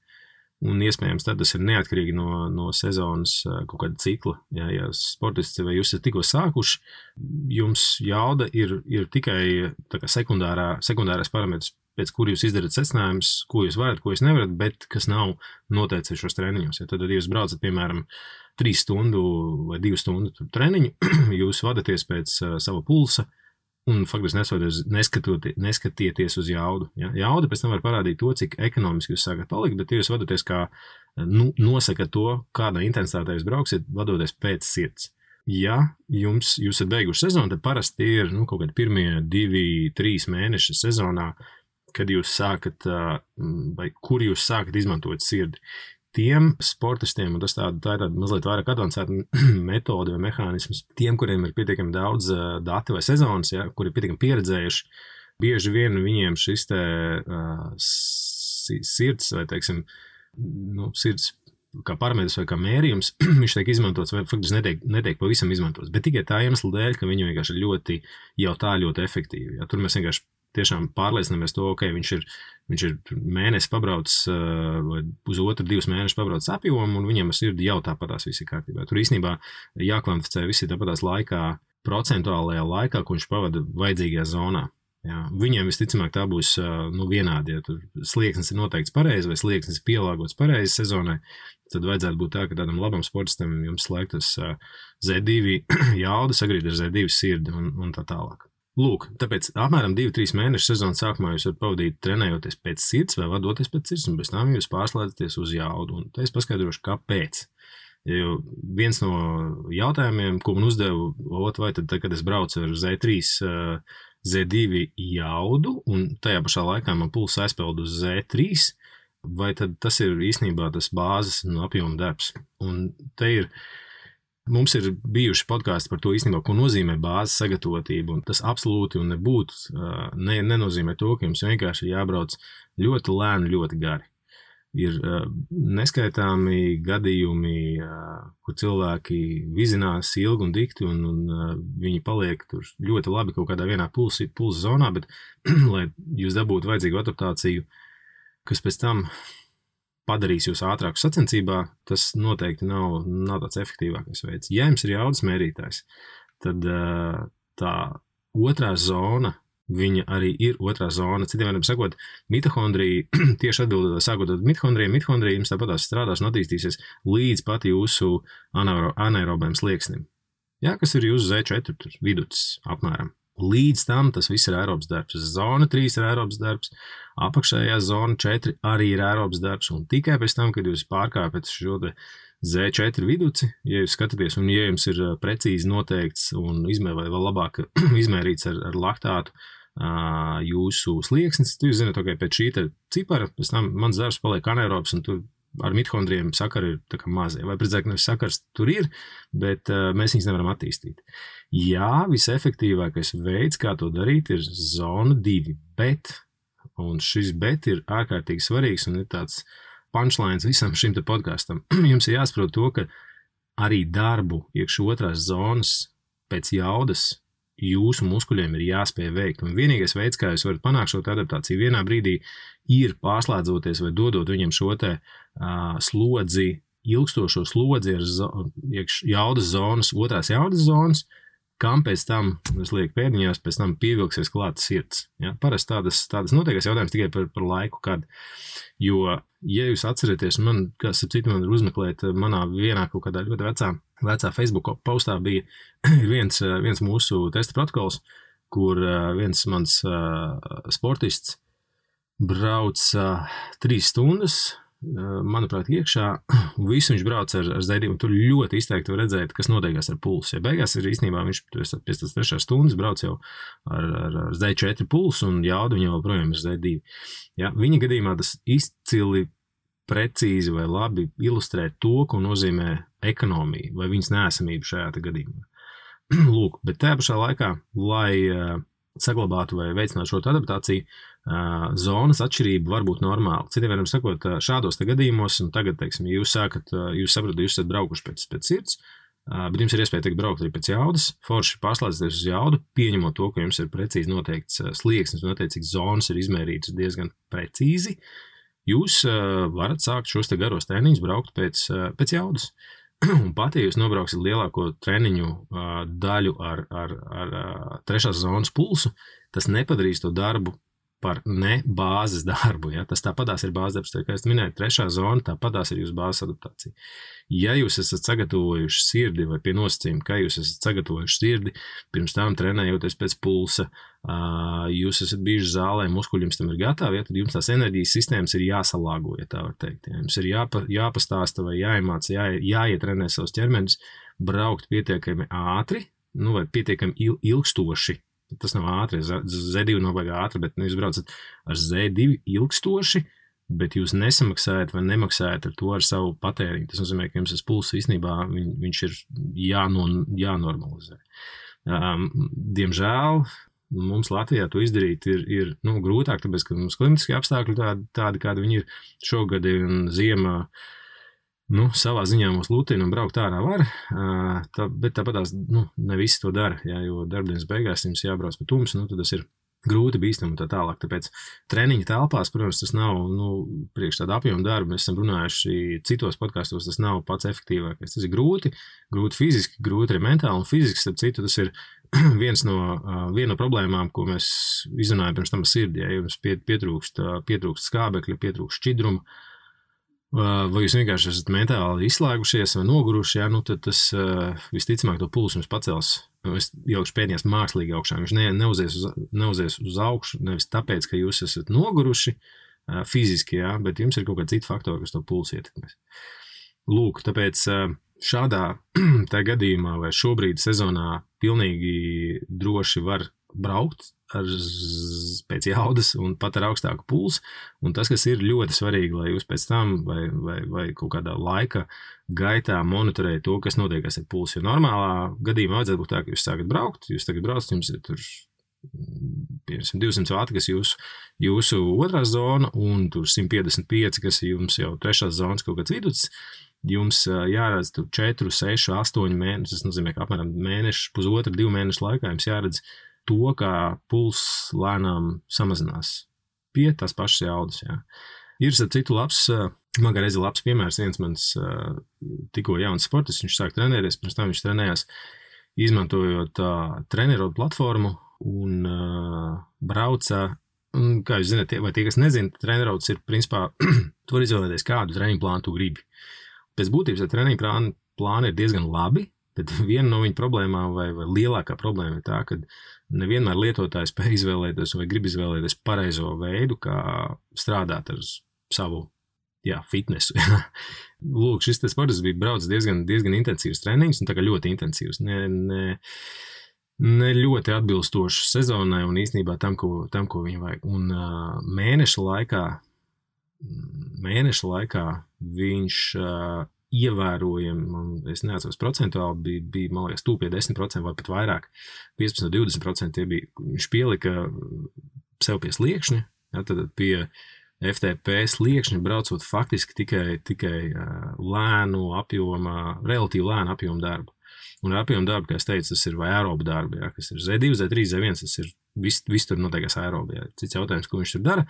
un iespējams tad tas ir neatkarīgi no sezonas kaut kāda cikla. Ja sportisti vai jūs esat tikko sākuši, jums jauda ir tikai tā kā sekundārais parametrs, pēc kur jūs izdarat secinājumus, ko jūs varat, ko jūs nevarat, bet kas nav noteikts šos treniņos. Ja tad, ja jūs braucat, piemēram, 3 stundu vai 2 stundu treniņu, jūs vadaties pēc sava pulsa, un faktiski neskatieties uz jaudu. Ja? Jauda pēc tam var parādīt to, cik ekonomiski jūs sākat palikt, bet jūs vadoties kā nosakat to, kādā intensitātē jūs brauksiet, vadoties pēc sirds. Ja jūs esat beiguši sezonu, tad parasti ir kaut kādi pirmie 2-3 mēneši sezonā, kad jūs sākat, vai kur jūs sākat izmantot sirdi. Tiem sportistiem, un tā ir tāda mazliet vairāk advancēta metode vai mehānisms, tiem, kuriem ir pietiekami daudz dati vai sezonas, ja, kuri ir pietiekami pieredzējuši, bieži vien viņiem šis te sirds vai, teiksim, sirds kā parametrs vai kā mērījums, viņš tiek izmantots vai faktiski netiek pavisam izmantots, bet tikai tā iemesla dēļ, ka viņi vienkārši ir ļoti efektīvi. Ja, tur mēs vienkārši tiešām pārliecinamies to, ka viņš ir mēnesi pabraucis vai uz 2 mēnešus pabraucis apjomu, un viņam ar sirdi jau tāpatās viss ir kārtībā. Tur īstenībā jākvantificē visi tāpatās laikā, procentuālajā laikā, ko viņš pavada vajadzīgajā zonā. Jā. Viņiem visticamāk tā būs vienādi, ja tur slieksnis ir noteikts pareizi vai slieksnis ir pielāgots pareizi sezonai, tad vajadzētu būt tā, ka tādam labam sportistam jums slēgtas Z2 jauda sagrīt ar Z2 sirdi un tā tālāk. Lūk, tāpēc apmēram 2-3 mēnešu sezonas sākumā jūs varat pavadīt trenējoties pēc sirds vai vadoties pēc sirds, un pēc tam jūs pārslēdzaties uz jaudu. Un te es paskaidrošu, kāpēc. Jo viens no jautājumiem, ko man uzdevu, vai tad, kad es braucu ar Z3, Z2 jaudu, un tajā pašā laikā man pulss aizpeld uz Z3, vai tad tas ir īstenībā tas bāzes un apjoma darbs. Un te ir Mums ir bijuši podkāsti par to īstenībā, ko nozīmē bāzes sagatavotība, un tas absolūti un nenozīmē to, ka jums vienkārši ir jābrauc ļoti lēni, ļoti gari. Ir neskaitāmi gadījumi, kur cilvēki vizinās ilgi un dikti, un viņi paliek tur ļoti labi kaut kādā vienā pulsa zonā, bet, lai jūs dabūtu vajadzīgu adaptāciju, kas pēc tam padarīs jūs ātrāku sacensībā, tas noteikti nav tāds efektīvākais veids. Ja jums ir jaudas mērītājs, tad tā otrā zona, viņa arī ir otrā zona. Citiem vārdiem sakot, mitohondrija, tieši atbildot, sākot ar mitohondrija jums tāpatās strādās un attīstīsies līdz pat jūsu anaerobēm slieksnim. Jā, kas ir jūsu Z4 viducis apmēram. Līdz tam tas viss ir aerobs darbs. Zona 3 ir aerobs darbs, apakšējā zona 4 arī ir aerobs darbs, un tikai pēc tam, kad jūs pārkāpjat šo Z4 viduci, ja jūs skatāties, un ja jums ir precīzi noteikts un vai vēl labāk izmērīts ar laktātu jūsu slieksnis, tad jūs zināt, ka pēc šī cipara, pēc tam mans darbs paliek anaerobs, un tur ar mitohondrijiem sakari ir tā kā mazie. Vai precīzāk, nevis sakars tur ir, bet mēs viņus nevaram attīstīt. Jā, visefektīvākais veids, kā to darīt, ir zona 2, bet, un šis bet ir ārkārtīgi svarīgs un ir tāds punchlines visam šim te podkastam. Jums ir jāsaprot to, ka arī darbu iekš otrās zonas pēc jaudas jūsu muskuļiem ir jāspēj veikt. Un vienīgais veids, kā jūs varat panākt šo adaptāciju vienā brīdī, ir pārslēdzoties vai dodot viņiem šo te slodzi, ilgstošo slodzi ar jaudas zonas, otrās jaudas zonas, kam pēc tam, es lieku pēdiņās, pēc tam pievilksies klāt sirds. Ja? Parasti tādas notiekās jautājums tikai par laiku, kad, jo, ja jūs atceraties, man, kas ap citu man ir uzmeklēt, manā vienā kaut kādā ļoti vecā Facebook postā bija viens mūsu testa protokols, kur viens mans sportists brauc 3 stundas, manuprāt, iekšā, un visu viņš brauc ar Z2, un tur ļoti izteikti var redzēt, kas notiekās ar pulsu. Ja beigās ir īstenībā, viņš pēc tās 3 stundas brauc jau ar Z4 pulsu, un jauda viņam vēl projām ir Z2. Ja, viņa gadījumā tas izcili precīzi vai labi ilustrē to, ko nozīmē ekonomija vai viņas neesamība šajā gadījumā. Lūk, bet tajā pašā laikā, lai saglabātu vai veicinātu šo adaptāciju, zonas atšķirība var būt normāla. Citiem vārdiem sakot, šādos gadījumos, un tagad, teiksim, jūs saprotat, jūs esat braukuši pēc sirds, bet jums ir iespēja tikt braukt arī pēc jaudas, forši pārslēdzties uz jaudu, pieņemot to, ka jums ir precīzi noteikts slieksnis un attiecīgs zonas ir izmērītas diezgan precīzi, jūs varat sākt šos garos treniņus braukt pēc jaudas. Un pat, ja jūs nobrauksiet lielāko treniņu daļu ar trešās zonas pulsu, tas nepadarīs to darbu par ne bāzes darbu. Ja? Tas tāpatās ir bāzes darbs, kā es minēju, trešā zona, tāpatās ir jūsu bāzes adaptācija. Ja jūs esat sagatavojuši sirdi vai pie nosacījuma, ka jūs esat sagatavojuši sirdi, pirms tam trenējoties pēc pulsa, jūs esat bijuši zālē, muskuļi jums tam ir gatavi, ja? Tad jums tās enerģijas sistēmas ir jāsalāgo, ja tā var teikt. Ja? Jums ir jāpastāsta vai jāiemāca, jāietrenē savus ķermeņus, braukt pietiekami ātri, vai pietiekami ilgstoši. Tas nav ātri, Z2 nav baigā ātri, bet jūs braucat ar Z2 ilgstoši, bet jūs nesamaksājat vai nemaksājat ar to ar savu patēriņu. Tas nozīmē, ka jums tas pulss īstenībā viņš ir jānormalizē. Diemžēl mums Latvijā to izdarīt ir grūtāk, tāpēc, ka mums klimatiskie apstākļi tādi, kādi viņi ir šogad un ziemā. Savā ziņā mūs lutina un braukt ārā var, bet tāpatās ne visi to dara, ja, jo darbdienas beigās jums jābrauc pa tumsu, tad tas ir grūti bīstami un tā tālāk. Tāpēc treniņa telpās, protams, tas nav priekš tāda apjoma darba. Mēs esam runājuši citos podkastos, tas nav pats efektīvākais. Tas ir grūti fiziski, grūti arī mentāli un fiziski, starp citu, tas ir viena no problēmām, ko mēs izrunājam pirms tam ar sirdi. Ja jums pietrūkst skābekļa, pietrūkst šķidruma, vai jūs vienkārši esat mentāli izslēgušies vai noguruši, ja, tad tas visticamāk to pulsu jums pacels. Es ielikšu pēdējās mākslīgi augšā. Viņš neuzies uz augšu, nevis tāpēc, ka jūs esat noguruši fiziski, ja, bet jums ir kaut kādi citi faktori, kas to pulsu ietekmēs. Lūk, tāpēc šādā tā gadījumā vai šobrīd sezonā pilnīgi droši var braukt pēc jaudas un pat ar augstāku pulsu. Un tas, kas ir ļoti svarīgi, lai jūs pēc tam vai kaut kādā laika gaitā monitorējat to, kas notiekās ar pulsu. Jo normālā gadījumā vajadzētu būt tā, ka jūs sākat braukt, jūs tagad braucat, jums ir tur 200 vati, kas jūsu otrā zona, un tur 155, kas ir jums jau trešās zonas kaut kāds viduts. Jums jāredz tur 4, 6, 8 mēnešus, tas nozīmē, ka apmēram mēnešu, pusotra, 2 mēnešu laikā jums jāredz to, kā puls lēnām samazinās pie tās pašas jaudas. Jā. Ir citu labs, man kā reizi labs piemērs, viens mans tikko jauns sportists, viņš sāk trenēties, pirms tam viņš trenējās, izmantojot trenerodu platformu un brauca. Un, kā jūs zināt, vai tie, kas nezina, trenerods ir principā, tu vari izvēlēties kādu treniņu plānu tu gribi. Pēc būtības treniņu plāni ir diezgan labi, bet viena no viņa problēmām vai lielākā problēma ir tā, ka nevienmēr lietotājs spēj izvēlēties vai grib izvēlēties pareizo veidu, kā strādāt ar savu fitnesu. Lūk, šis sports bija braucis diezgan intensīvs treniņš, un tā kā ļoti intensīvs. Ne ļoti atbilstošs sezonai un īstenībā tam, ko viņa vajag. Un mēneša laikā viņš ievērojami, es neatceros procentuāli, bija man liekas, tūp pie 10% vai pat vairāk, 15-20% viņš pielika sev pie sliekšņa, tad pie FTP sliekšņa braucot faktiski tikai relatīvi lēnu apjomu darbu. Un apjomu darbu, kā es teicu, tas ir vai aerobu darbu, kas ir Z2, Z3, Z1, tas ir viss tur notiekās aerobi. Cits jautājums, ko viņš tur dara,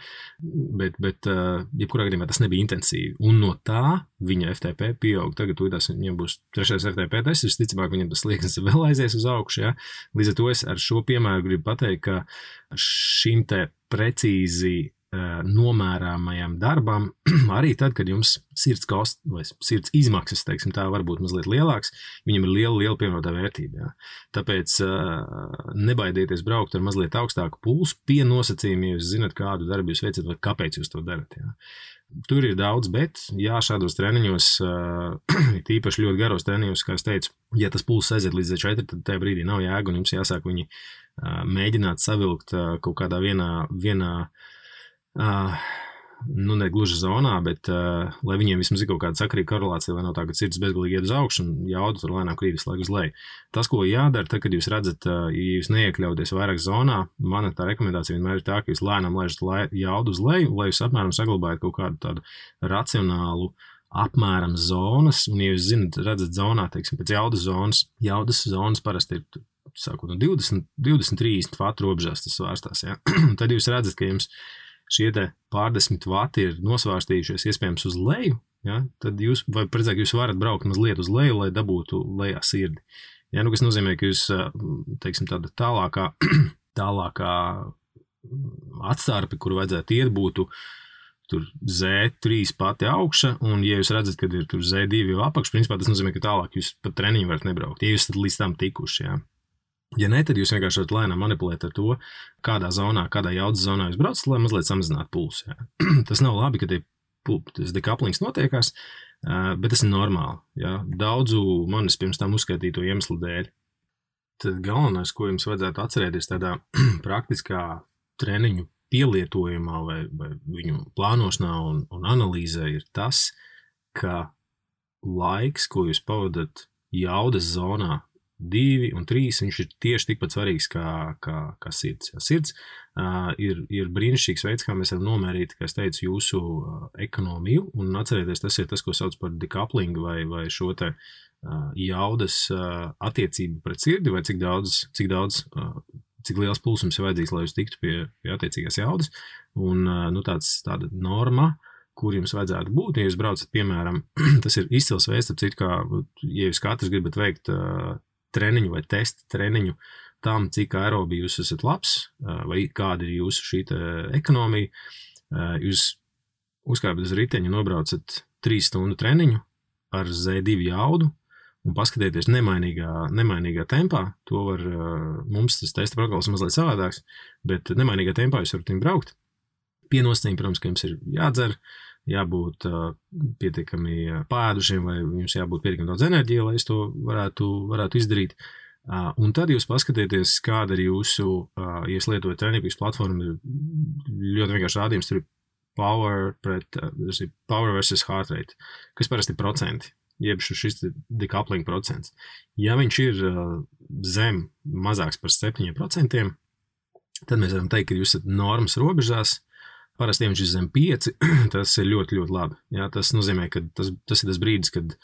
bet jebkurā gadījumā tas nebija intensīvi. Un no tā viņa FTP pieaug. Tagad viņam būs 3. FTP tests, visticamāk viņam tas slieksnis vēl aizies uz augšu. Ja? Līdz ar to es ar šo piemēru gribu pateikt, ka šim te precīzi nomērāmajam darbam, arī tad, kad jums sirds kosts vai sirds izmaksas, teiksim, tā var būt mazliet lielāks, viņam ir liela pievienotā vērtība. Jā. Tāpēc nebaidieties braukt ar mazliet augstāku pulsu pie nosacījumiem, ja jūs zinat, kādu darbu jūs veicat vai kāpēc jūs to darat. Jā. Tur ir daudz, bet šādos treniņos, tīpaši ļoti garos treniņos, kā es teicu, ja tas pulss aiziet līdz 4, tad tajā brīdī nav jēga, un jums jāsāk viņi mēģināt savilkt kaut kādā vienā ne gluži zonā, bet lai viņiem vismaz ir kaut kāda sakarīga korelācija, lai nav tā, ka sirds bezgalīgi iet uz augšu un jauda tur lēnām krīt visu laiku uz leju. Tas, ko jādara, tad, kad jūs redzat, ja jūs neiekļauties vairāk zonā, mana tā rekomendācija vienmēr ir tā, ka jūs lēnām laižat jaudu uz leju, lai jūs apmēram saglabājat kaut kādu tādu racionālu apmēram zonas, un ja jūs redzat zonā, teiksim, pēc jaudas zonas parasti ir sākot no 20-30 vatu robežās tas svārstās, ja? Tad jūs redzat, ka jums šie te pārdesmit vati ir nosvārstījušies iespējams uz leju, ja? Tad jūs varat braukt mazliet uz leju, lai dabūtu lejā sirdi. Ja? Kas nozīmē, ka jūs, teiksim, tāda tālākā atstarpe, kuru vajadzētu iet, būtu tur Z3 pati augša, un ja jūs redzat, kad ir tur Z2 jau apakš, principā tas nozīmē, ka tālāk jūs pat treniņu varat nebraukt, ja jūs tad līdz tam tikuši, ja. Ja ne, tad jūs vienkārši varat lēnām manipulēt ar to, kādā jaudas zonā jūs braucat, lai mazliet samazinātu pulsu. Ja. Tas nav labi, ka tas dekaplings notiekās, bet tas ir normāli. Ja. Daudzu manis pirms tam uzskaitīto iemeslu dēļ. Tad galvenais, ko jums vajadzētu atcerēties tādā praktiskā treniņu pielietojumā vai viņu plānošanā un analīzē ir tas, ka laiks, ko jūs pavadat jaudas zonā, 2 un 3, viņš ir tieši tikpat svarīgs kā sirds. Sirds ir brīnišķīgs veids, kā mēs varam nomērīt, kā es teicu, jūsu ekonomiju, un atcerieties, tas ir tas, ko sauc par decoupling vai šo te jaudas attiecību pret sirdi, vai cik liels pulsums ir vajadzīgs, lai jūs tiktu pie attiecīgās jaudas, un tāda norma, kur jums vajadzētu būt, ja jūs braucat, piemēram, tas ir izcils veids, citu, kā, ja jūs katrs gribat veikt treniņu vai testa treniņu tam, cik aerobi jūs esat labs, vai kāda ir jūsu šī ekonomija, jūs uzkāpjat uz riteņu, nobraucat 3 stundu treniņu ar Z2 jaudu un paskatieties nemainīgā tempā. To var, mums tas testa protokols mazliet savādāks, bet nemainīgā tempā jūs varat viņu braukt. Pie nosacījuma, protams, ka jums ir jādzer, jābūt pietiekami pādušiem vai jums jābūt pietiekami daudz enerģija, lai es to varētu izdarīt. Un tad jūs paskatieties, kāda ir jūsu, ja jūs lietojat Training platformu, ir ļoti vienkārši rādījums, tur ir power versus heart rate, kas parasti ir procenti, jeb šis decoupling procents. Ja viņš ir zem mazāks par 7%, tad mēs varam teikt, ka jūs esat normas robežās. Parasti, ja viņš ir zem 5, tas ir ļoti, ļoti labi. Jā, tas nozīmē, ka tas ir tas brīdis, kad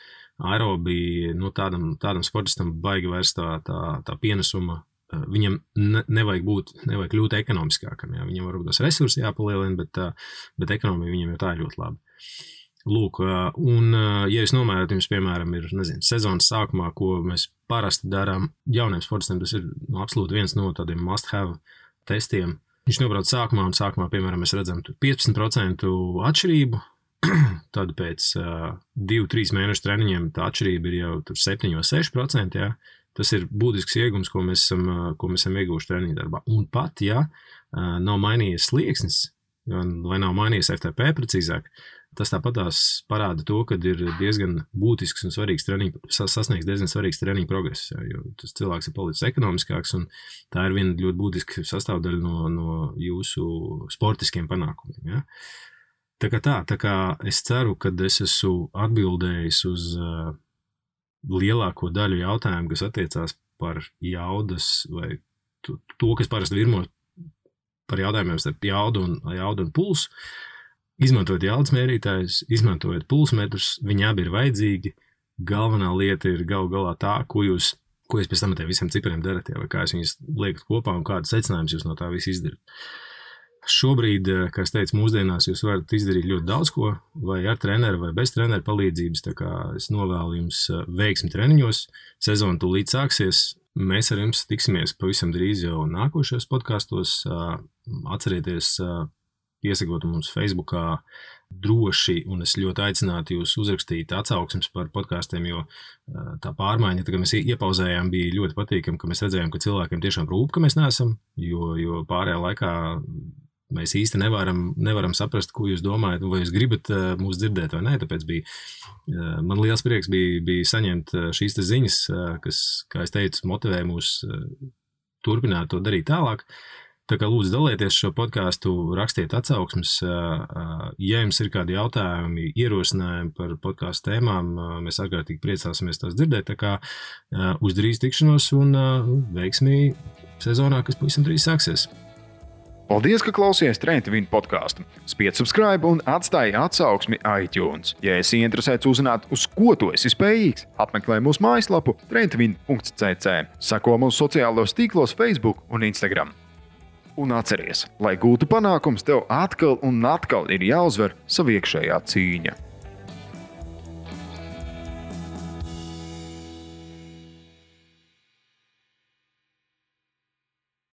aerobija, tādam sportistam baigi vairs tā pienesuma, viņam nevajag kļūt ekonomiskākam. Jā. Viņam varbūt tos resursi jāpalielina, bet ekonomija viņam jau tā ir ļoti labi. Lūk, un ja jūs nomērāt, jums, piemēram, ir, sezonas sākumā, ko mēs parasti darām jauniem sportistiem, tas ir absolūti viens no tādiem must-have testiem. Viņš nobrauc sākumā, un sākumā, piemēram, mēs redzam 15% atšķirību, tad pēc 2-3 mēnešu treniņiem tā atšķirība ir jau 7-6%, jā. Tas ir būtisks iegums, ko mēs esam ieguvuši treniņu darbā. Un pat, ja nav mainījies slieksnis, vai nav mainījies FTP precīzāk, tas tāpatās parāda to, ka ir diezgan būtisks un svarīgs sasniegs diezgan svarīgs treniņu progress, jo tas cilvēks ir palicis ekonomiskāks, un tā ir viena ļoti būtiska sastāvdaļa no jūsu sportiskiem panākumiem. Ja? Tā kā es ceru, ka es esmu atbildējis uz lielāko daļu jautājumu, kas attiecās par jaudas vai to, kas parasti virmo par jautājumiem starp jaudu un pulsu. Izmantojot jaudas mērītājus, izmantojot pulsmetrus, viņi abi ir vajadzīgi. Galvenā lieta ir galu galā tā, ko jūs pēc tam ar tiem visiem cipariem darat, vai kā jūs viņus liekat kopā un kādas secinājumus jūs no tā visu izdarat. Šobrīd, kā es teicu, mūsdienās jūs varat izdarīt ļoti daudz ko, vai ar treneru vai bez treneru palīdzības, tā kā es novēlu jums veiksmi treniņos, sezona tūlīt sāksies, mēs ar jums tiksimies pavisam drīz jau nākošajos podkastos, atcerieties piesakot mums Facebookā droši, un es ļoti aicinātu jūs uzrakstīt atsauksmes par podkastiem, jo tā pārmaiņa, tā kā mēs iepauzējām, bija ļoti patīkami, ka mēs redzējām, ka cilvēkiem tiešām rūp, ka mēs neesam, jo pārējā laikā mēs īsti nevaram saprast, ko jūs domājat, vai jūs gribat mūs dzirdēt vai nē, tāpēc man liels prieks bija saņemt šīs ziņas, kas, kā es teicu, motivē mūs turpināt to darīt tālāk. Tā kā lūdzu dalieties šo podcastu, rakstiet atsauksmes, ja jums ir kādi jautājumi, ierosinājumi par podcastu tēmām, mēs ārkārtīgi priecāsimies tās dzirdēt, tā kā uz drīz tikšanos un veiksmī sezonā, kas pavisam drīz sāksies. Paldies, ka klausījāties Train to Win podcastu. Spied subscribe un atstāj atsauksmi iTunes. Ja esi interesēts uzzināt, uz ko tu esi spējīgs, apmeklē mūsu mājaslapu traintovin.cc. Seko mūsu sociālos tīklos Facebook un Instagram. Un atceries, lai gūtu panākums, tev atkal un atkal ir jāuzvar sava iekšējā cīņa.